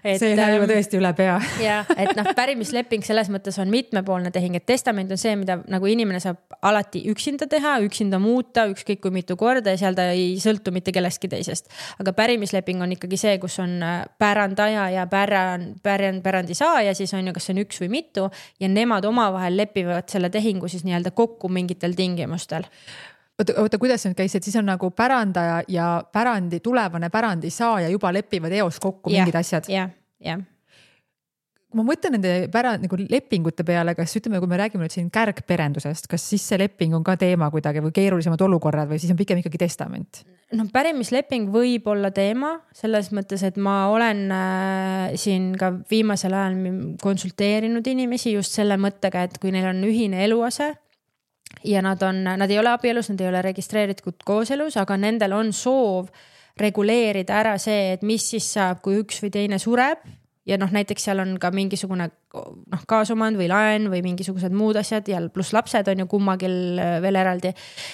See läheb juba tõesti üle pea.
Ja, et pärimisleping selles mõttes on mitmepoolne tehing, et testament on see, mida nagu inimene saab alati üksinda teha, üksinda muuta, ükskõik kui mitu korda ja seal ta ei sõltu mitte kellestki teisest. Aga pärimisleping on ikkagi see, kus on pärandaja ja pärandi saaja, siis on ju, kas see on üks või mitu ja nemad omavahel lepivad selle tehingu siis nii-öelda kokku mingitel tingimustel.
Oota, kuidas nüüd käis, et siis on nagu pärandaja ja tulevane pärandi saaja juba lepivad eos kokku mingid asjad?
Ja.
Kui ma mõtlen nende nagu lepingute peale, kas ütleme, kui me räägime nüüd siin kärgperendusest, kas siis see leping on ka teema kuidagi või keerulisemad olukorrad või siis on pigem ikkagi testament?
Pärimisleping võib olla teema selles mõttes, et ma olen siin ka viimasel ajal konsulteerinud inimesi just selle mõttega, et kui neil on ühine eluase ja nad ei ole abielus, nad ei ole registreeritud kooselus, aga nendel on soov reguleerida ära see, et mis siis saab, kui üks või teine sureb ja näiteks seal on ka mingisugune kaasomand või laen või mingisugused muud asjad ja pluss lapsed on ju kummagil veel eraldi,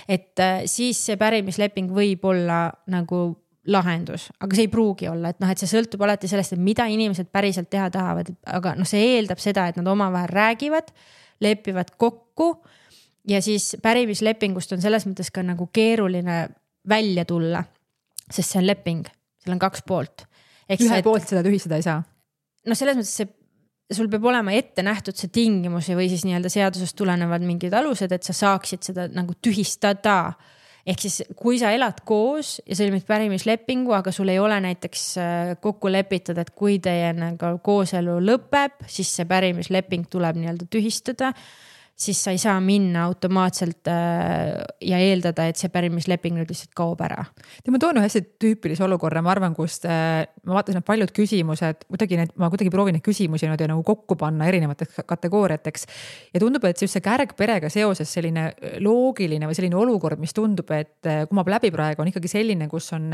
et siis see pärimisleping võib olla nagu lahendus, aga see ei pruugi olla, et see sõltub alati sellest, et mida inimesed päriselt teha tahavad, aga see eeldab seda, et nad omavahel räägivad, lepivad kokku ja siis pärimislepingust on selles mõttes ka nagu keeruline välja tulla, sest see on leping, seal on 2 poolt.
Ühe poolt seda tühistada ei saa?
Selles mõttes sul peab olema ette nähtud see tingimusi või siis nii-öelda seadusest tulenevad mingid alused, et sa saaksid seda nagu tühistada. Ehk siis, kui sa elad koos ja sõlmid pärimislepingu, aga sul ei ole näiteks kokku lepitud, et kui teie nagu kooselu lõpeb, siis see pärimisleping tuleb nii-öelda tühistada, siis sa ei saa minna automaatselt ja eeldada, et see pärimisleping nüüd lihtsalt kaob ära.
Ma toon hästi tüüpilise olukorra, ma arvan, kust ma vaatasin paljud küsimused, ma kuidagi proovin neid küsimusi nagu kokku panna erinevateks kategooriateks ja tundub, et see kärgperega seoses selline loogiline või selline olukord, mis tundub, et kumab läbi praegu on ikkagi selline, kus on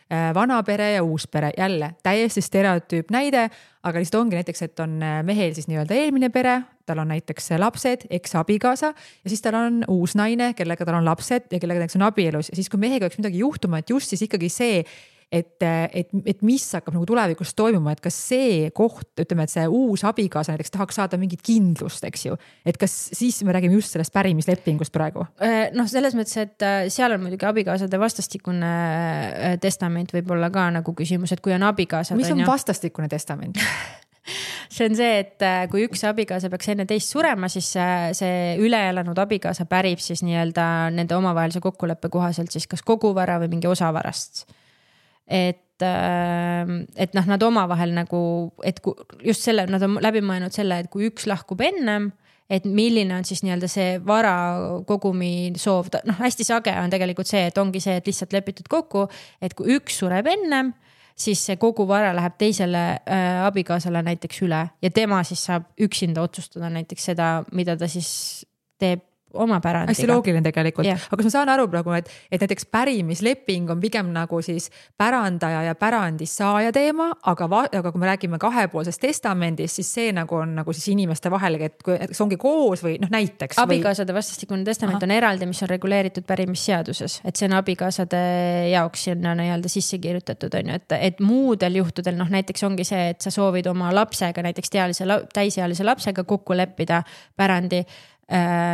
vana pere ja uus pere, jälle täiesti stereotüüp näide, aga lihtsalt ongi näiteks, et on mehel siis nii-öelda eelmine pere, tal on näiteks lapsed, eks-abikaasa ja siis tal on uus naine, kellega tal on lapsed ja kellega näiteks on abielus ja siis kui mehega oleks midagi juhtuma, et just siis ikkagi see, et mis hakkab nagu tulevikus toimuma, et kas see koht, ütleme, et see uus abikaasa näiteks tahaks saada mingit kindlust, eks ju, et kas siis me räägime just sellest pärimislepingust praegu?
Selles mõttes, et seal on muidugi abikaasade vastastikune testament võib olla ka nagu küsimus, et kui on abikaasad.
Mis on vastastikune testament?
See on see, et kui üks abikaasa peaks enne teist surema, siis see üleelanud abikaasa pärib siis nii-öelda nende omavahelise kokkuleppe kohaselt siis kas kogu vara või mingi osa varast. Et nad omavahel nagu, et just selle, nad on läbi mõelnud selle, et kui üks lahkub ennem, et milline on siis nii-öelda see vara kogumi soov, hästi sage on tegelikult see, et ongi see, et lihtsalt lepitud kokku, et kui üks sureb ennem, siis see kogu vara läheb teisele abikaasale näiteks üle ja tema siis saab üksinda otsustada näiteks seda, mida ta siis teeb oma pärandiga.
Hästi loogiline tegelikult. Yeah. Aga kas ma saan aru praegu, et näiteks pärimisleping on pigem nagu siis pärandaja ja pärandissaaja teema, aga kui me räägime kahepoolsest testamendist, siis see nagu on nagu siis inimeste vahel, et see ongi koos või näiteks.
Abikaasade vastastikune testament on eraldi, mis on reguleeritud pärimisseaduses, et see on abikaasade jaoks sinna nii-öelda sisse kirjutatud, on ju, et muudel juhtudel, näiteks ongi see, et sa soovid oma lapsega, näiteks täisealise lapsega kokku leppida pärandi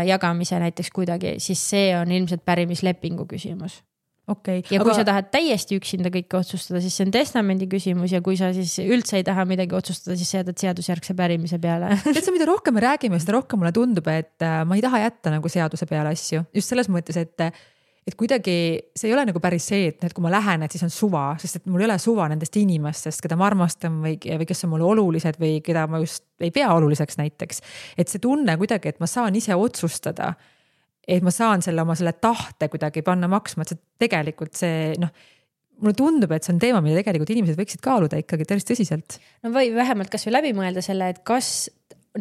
jagamise näiteks kuidagi, siis see on ilmselt pärimislepingu küsimus.
Okay.
Ja kui sa tahad täiesti üksinda kõike otsustada, siis see on testamendi küsimus ja kui sa siis üldse ei taha midagi otsustada, siis jätad seadusjärgse pärimise peale.
Tead sa, mida rohkem me räägime, seda rohkem mulle tundub, et ma ei taha jätta nagu seaduse peale asju. Just selles mõttes, et kuidagi see ei ole nagu päris see, et kui ma lähen, et siis on suva, sest et mul ei ole suva nendest inimestest, keda ma armastan või kes on mulle olulised või keda ma just ei pea oluliseks näiteks. Et see tunne kuidagi, et ma saan ise otsustada, et ma saan oma tahte kuidagi panna maksma, et see tegelikult see, mulle tundub, et see on teema, mida tegelikult inimesed võiksid kaaluda ikkagi päris tõsiselt.
No või vähemalt kas või läbi mõelda selle, et kas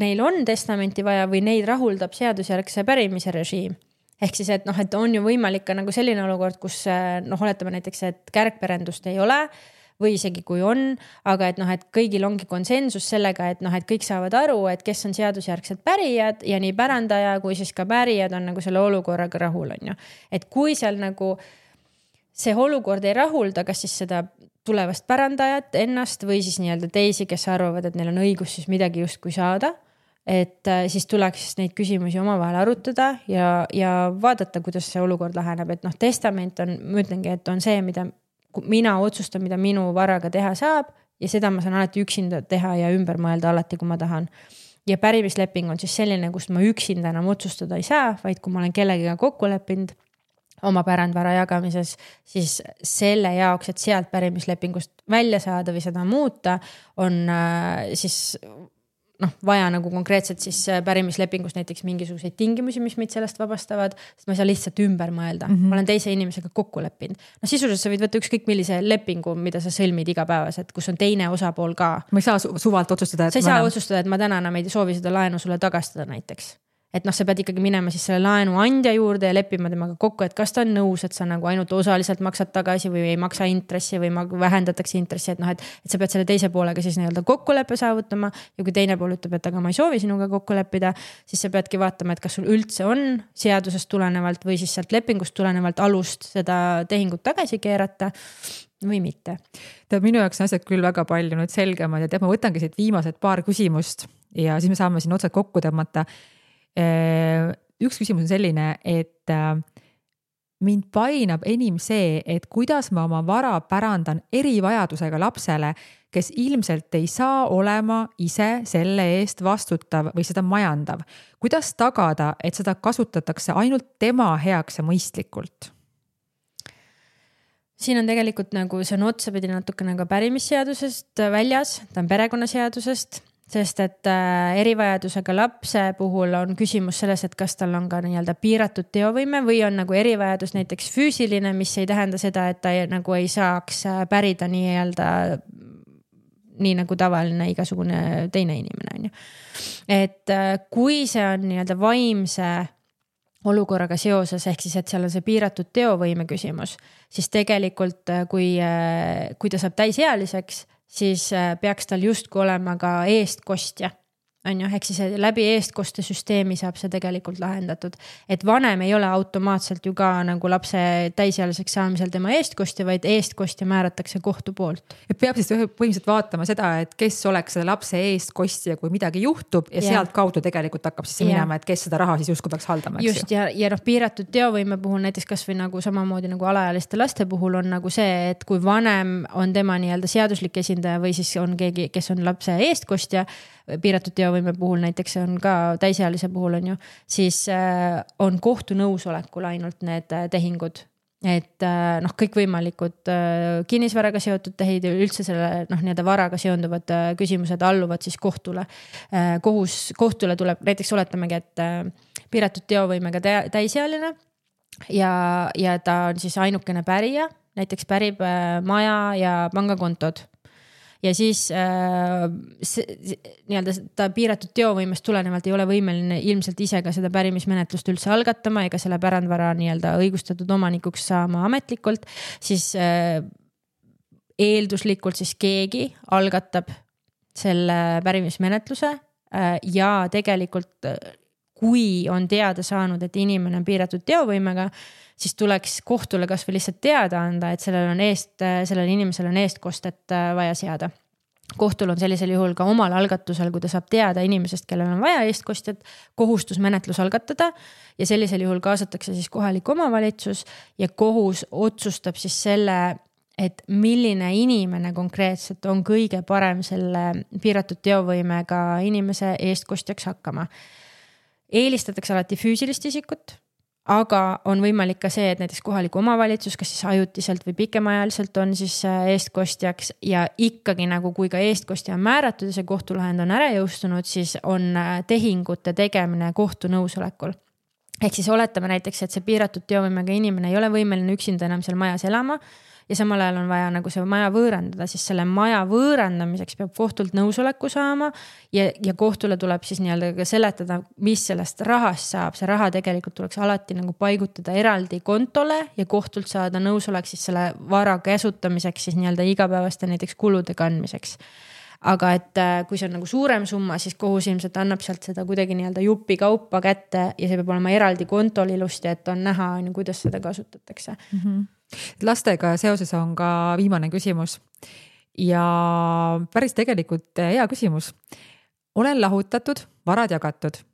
neil on testamenti vaja või neid rahuldab seadusjärgse pärimise režiim. Ehk siis, et on ju võimalik ka nagu selline olukord, kus oletame näiteks, et kärgperendust ei ole või isegi kui on, aga et kõigil ongi konsensus sellega, et kõik saavad aru, et kes on seadusjärgsed pärijad ja nii pärandaja kui siis ka pärijad on nagu selle olukorraga rahul, on ju. Et kui seal nagu see olukord ei rahulda, kas siis seda tulevast pärandajat ennast või siis nii-öelda teisi, kes arvavad, et neil on õigus siis midagi justkui saada, et siis tuleks neid küsimusi omavahel arutada ja vaadata, kuidas see olukord laheneb, et testament on, ma ütlengi, et on see, mida mina otsustan, mida minu varaga teha saab ja seda ma saan alati üksinda teha ja ümber mõelda alati, kui ma tahan. Ja pärimisleping on siis selline, kust ma üksinda enam otsustada ei saa, vaid kui ma olen kellegiga kokku leppinud oma pärandvara jagamises, siis selle jaoks, et sealt pärimislepingust välja saada või seda muuta, on siis vaja nagu konkreetselt siis pärimislepingus näiteks mingisuguseid tingimusi, mis meid sellest vabastavad, sest ma ei saa lihtsalt ümber mõelda. Ma olen teise inimesega kokku leppinud. Sisuliselt sa võid võtta ükskõik millise lepingu, mida sa sõlmid igapäevaselt, kus on teine osapool ka.
Ma ei saa suvalt otsustada,
et sa ei saa otsustada, et ma täna enam ei soovi seda laenu sulle tagastada näiteks. Et sa pead ikkagi minema siis selle laenu andja juurde ja leppima temaga kokku, et kas ta on nõus, et sa nagu ainult osaliselt maksad tagasi või ei maksa intressi või vähendatakse intressi, et sa pead selle teise poolega siis nii-öelda kokkuleppe saavutama ja kui teine pool ütleb, et aga ma ei soovi sinuga kokku leppida, siis sa peadki vaatama, et kas sul üldse on seadusest tulenevalt või siis sealt lepingust tulenevalt alust seda tehingut tagasi keerata või mitte.
Minu jaoks on asjad küll väga palju nüüd selgemad ja ma võtangi siit viimased paar küsimust ja siis me saame siin otsad kokku tõmmata. Üks küsimus on selline, et mind painab enim see, et kuidas ma oma vara pärandan erivajadusega lapsele, kes ilmselt ei saa olema ise selle eest vastutav või seda majandav. Kuidas tagada, et seda kasutatakse ainult tema heaks ja mõistlikult?
Siin on tegelikult nagu, see on otsapidi natuke nagu pärimisseadusest väljas, ta on perekonnaseadusest, sest et erivajadusega lapse puhul on küsimus selles, et kas tal on ka nii-öelda piiratud teovõime või on nagu erivajadus näiteks füüsiline, mis ei tähenda seda, et ta nagu ei saaks pärida nii-öelda nii nagu tavaline igasugune teine inimene on ju. Et kui see on nii-öelda vaimse olukorraga seoses, ehk siis, et seal on see piiratud teovõime küsimus, siis tegelikult kui ta saab täisealiseks, siis peaks tal justkui olema ka eestkostja. Ehk siis läbi eestkoste süsteemi saab see tegelikult lahendatud. Et vanem ei ole automaatselt ju ka nagu lapse täisealiseks saamisel tema eestkostja, vaid eestkostja määratakse kohtu poolt.
Et peab siis põhimõtteliselt vaatama seda, et kes oleks seda lapse eestkostja, kui midagi juhtub ja sealt kaudu tegelikult hakkab siis minema, et kes seda raha siis justkui peaks haldama.
Just ja piiratud teovõime puhul näiteks kas või nagu samamoodi nagu alaealiste laste puhul on nagu see, et kui vanem on tema nii-öelda seaduslik esindaja või siis on keegi, kes on lapse eestkostja, piiratud teovõime puhul näiteks on ka täisealise puhul on ju, siis on kohtu nõusolekul ainult need tehingud. Et kõikvõimalikud kinnisvaraga seotud tehid ja üldse selle nii-öelda varaga seonduvad küsimused alluvad siis kohtule. Kohtule tuleb, näiteks oletamegi, et piiratud teovõimega täisealine ja ta on siis ainukene pärija, näiteks pärib maja ja pangakontod. Ja siis nii-öelda ta piiratud teovõimest tulenevalt ei ole võimeline ilmselt ise ka seda pärimismenetlust üldse algatama ega selle pärandvara nii-öelda õigustatud omanikuks saama ametlikult, siis eelduslikult siis keegi algatab selle pärimismenetluse ja tegelikult kui on teada saanud, et inimene on piiratud teovõimega, siis tuleks kohtule kas või lihtsalt teada anda, et sellel inimesel on eestkostet vaja seada. kohtul on sellisel juhul ka omal algatusel, kui ta saab teada inimesest, kellel on vaja eestkostjat, kohustusmenetlus algatada ja sellisel juhul kaasatakse siis kohalik omavalitsus ja kohus otsustab siis selle, et milline inimene konkreetselt on kõige parem selle piiratud teovõimega inimese eestkostjaks hakkama. Eelistatakse alati füüsilist isikut, aga on võimalik ka see, et näiteks kohalik omavalitsus, kas siis ajutiselt või pikemaajaliselt on siis eestkostjaks ja ikkagi nagu kui ka eestkostja on määratud ja see kohtulahend on ära jõustunud, siis on tehingute tegemine kohtu nõusolekul. Ehk siis oletame näiteks, et see piiratud teovõimega inimene ei ole võimeline üksinda enam seal majas elama ja samal ajal on vaja nagu see maja võõrandada, siis selle maja võõrandamiseks peab kohtult nõusoleku saama ja kohtule tuleb siis nii-öelda ka seletada, mis sellest rahast saab. See raha tegelikult tuleks alati nagu paigutada eraldi kontole ja kohtult saada nõusolek siis selle vara käsutamiseks siis nii-öelda igapäevaste näiteks kulude kandmiseks. Aga et kui see on nagu suurem summa, siis kohus ilmselt annab sealt seda kuidagi nii-öelda jupi kaupa kätte ja see peab olema eraldi kontol ilusti, et on näha, kuidas seda kasutatakse.
Lastega seoses on ka viimane küsimus ja päris tegelikult hea küsimus. Olen lahutatud, varad jagatud.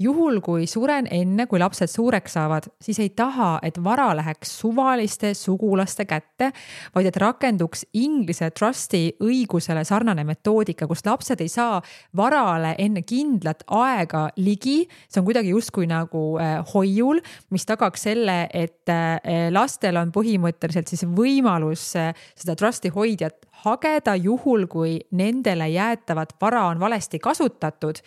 Juhul, kui suren enne, kui lapsed suureks saavad, siis ei taha, et vara läheks suvaliste sugulaste kätte, vaid et rakenduks Inglise trusti õigusele sarnane metoodika, kus lapsed ei saa varale enne kindlat aega ligi. See on kuidagi justkui nagu hoiul, mis tagaks selle, et lastel on põhimõtteliselt siis võimalus seda trusti hoidjat hageda juhul, kui nendele jäätavat vara on valesti kasutatud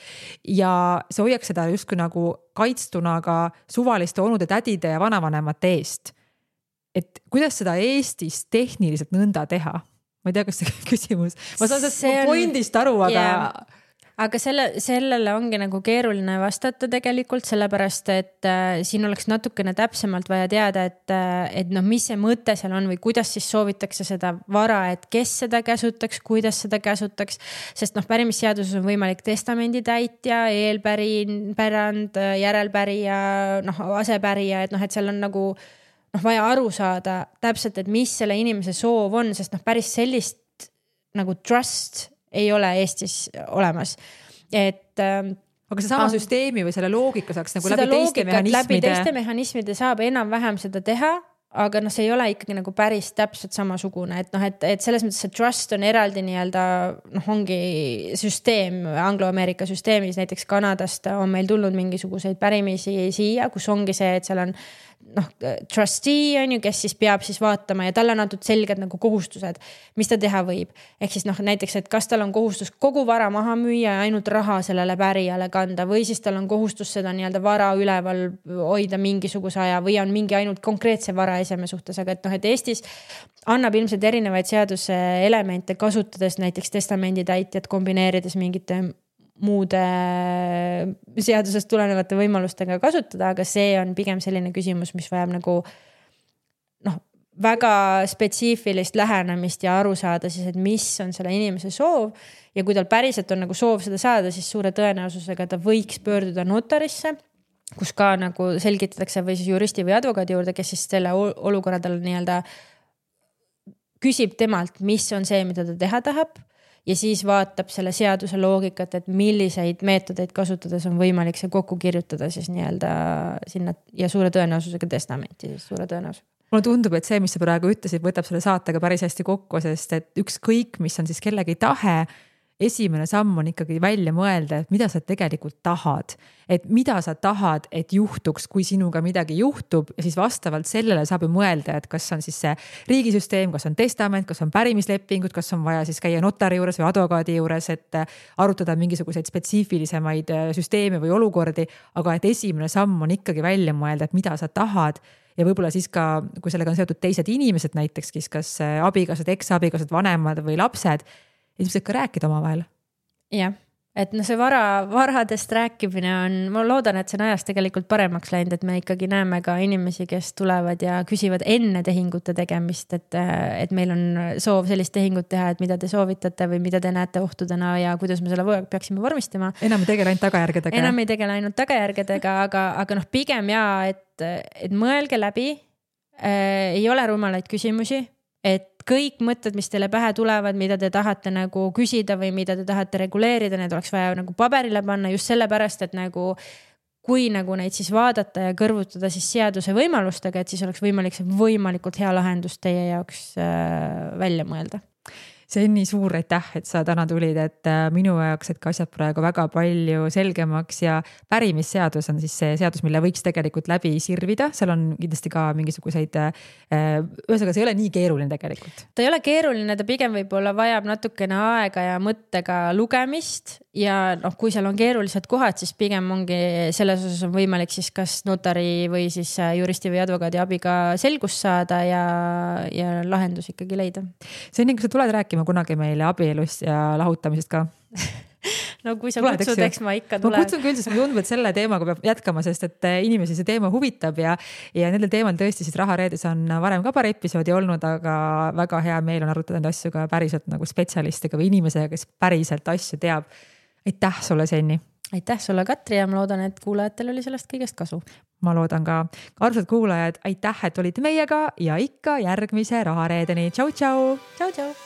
ja see hoiaks seda justkui nagu kaitstuna ka suvaliste onude, tädide ja vanavanemate eest. Et kuidas seda Eestis tehniliselt nõnda teha? Ma ei tea, kas see küsimus. Ma saan sellest pointist aru, aga...
Yeah. Aga sellele ongi nagu keeruline vastata tegelikult, sellepärast, et siin oleks natukene täpsemalt vaja teada, et mis see mõte seal on või kuidas siis soovitakse seda vara, et kes seda käsutaks, kuidas seda käsutaks, sest pärimisseaduses on võimalik testamendi täitja, eelpärand, järelpärija, asepärija, et seal on nagu vaja aru saada täpselt, et mis selle inimese soov on, sest päris sellist nagu trust ei ole Eestis olemas.
Aga see sama süsteemi või selle loogika saaks nagu läbi teiste mehhanismide?
Läbi teiste mehhanismide saab enam-vähem seda teha, aga see ei ole ikkagi nagu päris täpselt samasugune. Et selles mõttes see trust on eraldi nii-öelda, ongi süsteem, Anglo-Ameerika süsteemis, näiteks Kanadast on meil tulnud mingisuguseid pärimisi siia, kus ongi see, et seal on trustee on ju, kes siis peab siis vaatama ja talle on antud selged nagu kohustused, mis ta teha võib. Ehk siis näiteks, et kas tal on kohustus kogu vara maha müüa ja ainult raha sellele pärijale kanda või siis tal on kohustus seda nii-öelda vara üleval hoida mingisuguse aja või on mingi ainult konkreetse vara eseme suhtes, aga et Eestis annab ilmselt erinevaid seaduse elemente kasutades näiteks testamendi täitjat kombineerides mingite muude seadusest tulenevate võimalustega kasutada, aga see on pigem selline küsimus, mis vajab nagu väga spetsiifilist lähenemist ja aru saada siis, et mis on selle inimese soov ja kui tal päriselt on nagu soov seda saada, siis suure tõenäosusega ta võiks pöörduda notarisse, kus ka nagu selgitatakse või siis juristi või advokaadi juurde, kes siis selle olukorra tal nii-öelda küsib temalt, mis on see, mida ta teha tahab ja siis vaatab selle seaduse loogikat, et milliseid meetodeid kasutades on võimalik see kokku kirjutada siis nii-öelda sinna ja suure tõenäosusega testamenti siis suure tõenäosusega.
Mulle tundub, et see, mis sa praegu ütlesid, võtab selle saatega päris hästi kokku, sest et ükskõik, mis on siis kellegi tahe, esimene samm on ikkagi välja mõelda, et mida sa tegelikult tahad. Et mida sa tahad, et juhtuks, kui sinuga midagi juhtub ja siis vastavalt sellele saab ju mõelda, et kas on siis see riigisüsteem, kas on testament, kas on pärimislepingud, kas on vaja siis käia notari juures või advokaadi juures, et arutada mingisuguseid spetsiifilisemaid süsteeme või olukordi, aga et esimene samm on ikkagi välja mõelda, et mida sa tahad ja võib-olla siis ka, kui sellega on seotud teised inimesed näiteks, kas abikaasad, eksabikaasad, vanemad või lapsed, ilmselt ka rääkida omavahel.
Jah, et see varadest rääkimine on, ma loodan, et see on ajas tegelikult paremaks läinud, et me ikkagi näeme ka inimesi, kes tulevad ja küsivad enne tehingute tegemist, et meil on soov sellist tehingut teha, et mida te soovitate või mida te näete ohtudena ja kuidas me selle peaksime vormistama.
Enam ei tegele ainult tagajärgedega.
Enam ei tegele ainult tagajärgedega, aga pigem et mõelge läbi, ei ole rumalaid küsimusi. et kõik mõtted, mis teile pähe tulevad, mida te tahate nagu küsida või mida te tahate reguleerida, need oleks vaja nagu paberile panna just sellepärast, et nagu kui nagu neid siis vaadata ja kõrvutada siis seaduse võimalustega, et siis oleks võimalik see võimalikult hea lahendus teie jaoks välja mõelda.
See on nii suur aitäh, et sa täna tulid, et minu jaoks, et ka asjad praegu väga palju selgemaks ja pärimisseadus on siis see seadus, mille võiks tegelikult läbi sirvida. Seal on kindlasti ka mingisuguseid, ühesõnaga see ei ole nii keeruline tegelikult.
Ta ei ole keeruline, ta pigem võib-olla vajab natukene aega ja mõttega lugemist ja kui seal on keerulised kohad, siis pigem ongi selles osas on võimalik siis kas notari või siis juristi või advokaadi abiga selgust saada ja lahendus ikkagi leida.
See on nii, kui sa tuled rääkima kunagi meile abielust ja lahutamisest ka?
No kui sa kutsud, eks ma ikka tulen.
Ma kutsun küll, sest ma tundub, et selle teemaga peab jätkama, sest et inimesi see teema huvitab ja nendel teemal tõesti siis Rahareedes on varem ka paar episoodi olnud, aga väga hea meel on arutada neid asju ka päriselt nagu spetsialistiga või inimesega, kes päriselt asju teab. Aitäh sulle, Senni! Aitäh
sulle, Katri, ja ma loodan, et kuulajatel oli sellest kõigest kasu.
Ma loodan ka. Armsad kuulajad, aitäh, et olite meiega ja ikka järgmise Rahareedeni. Tšau, tšau!
Tšau, tšau!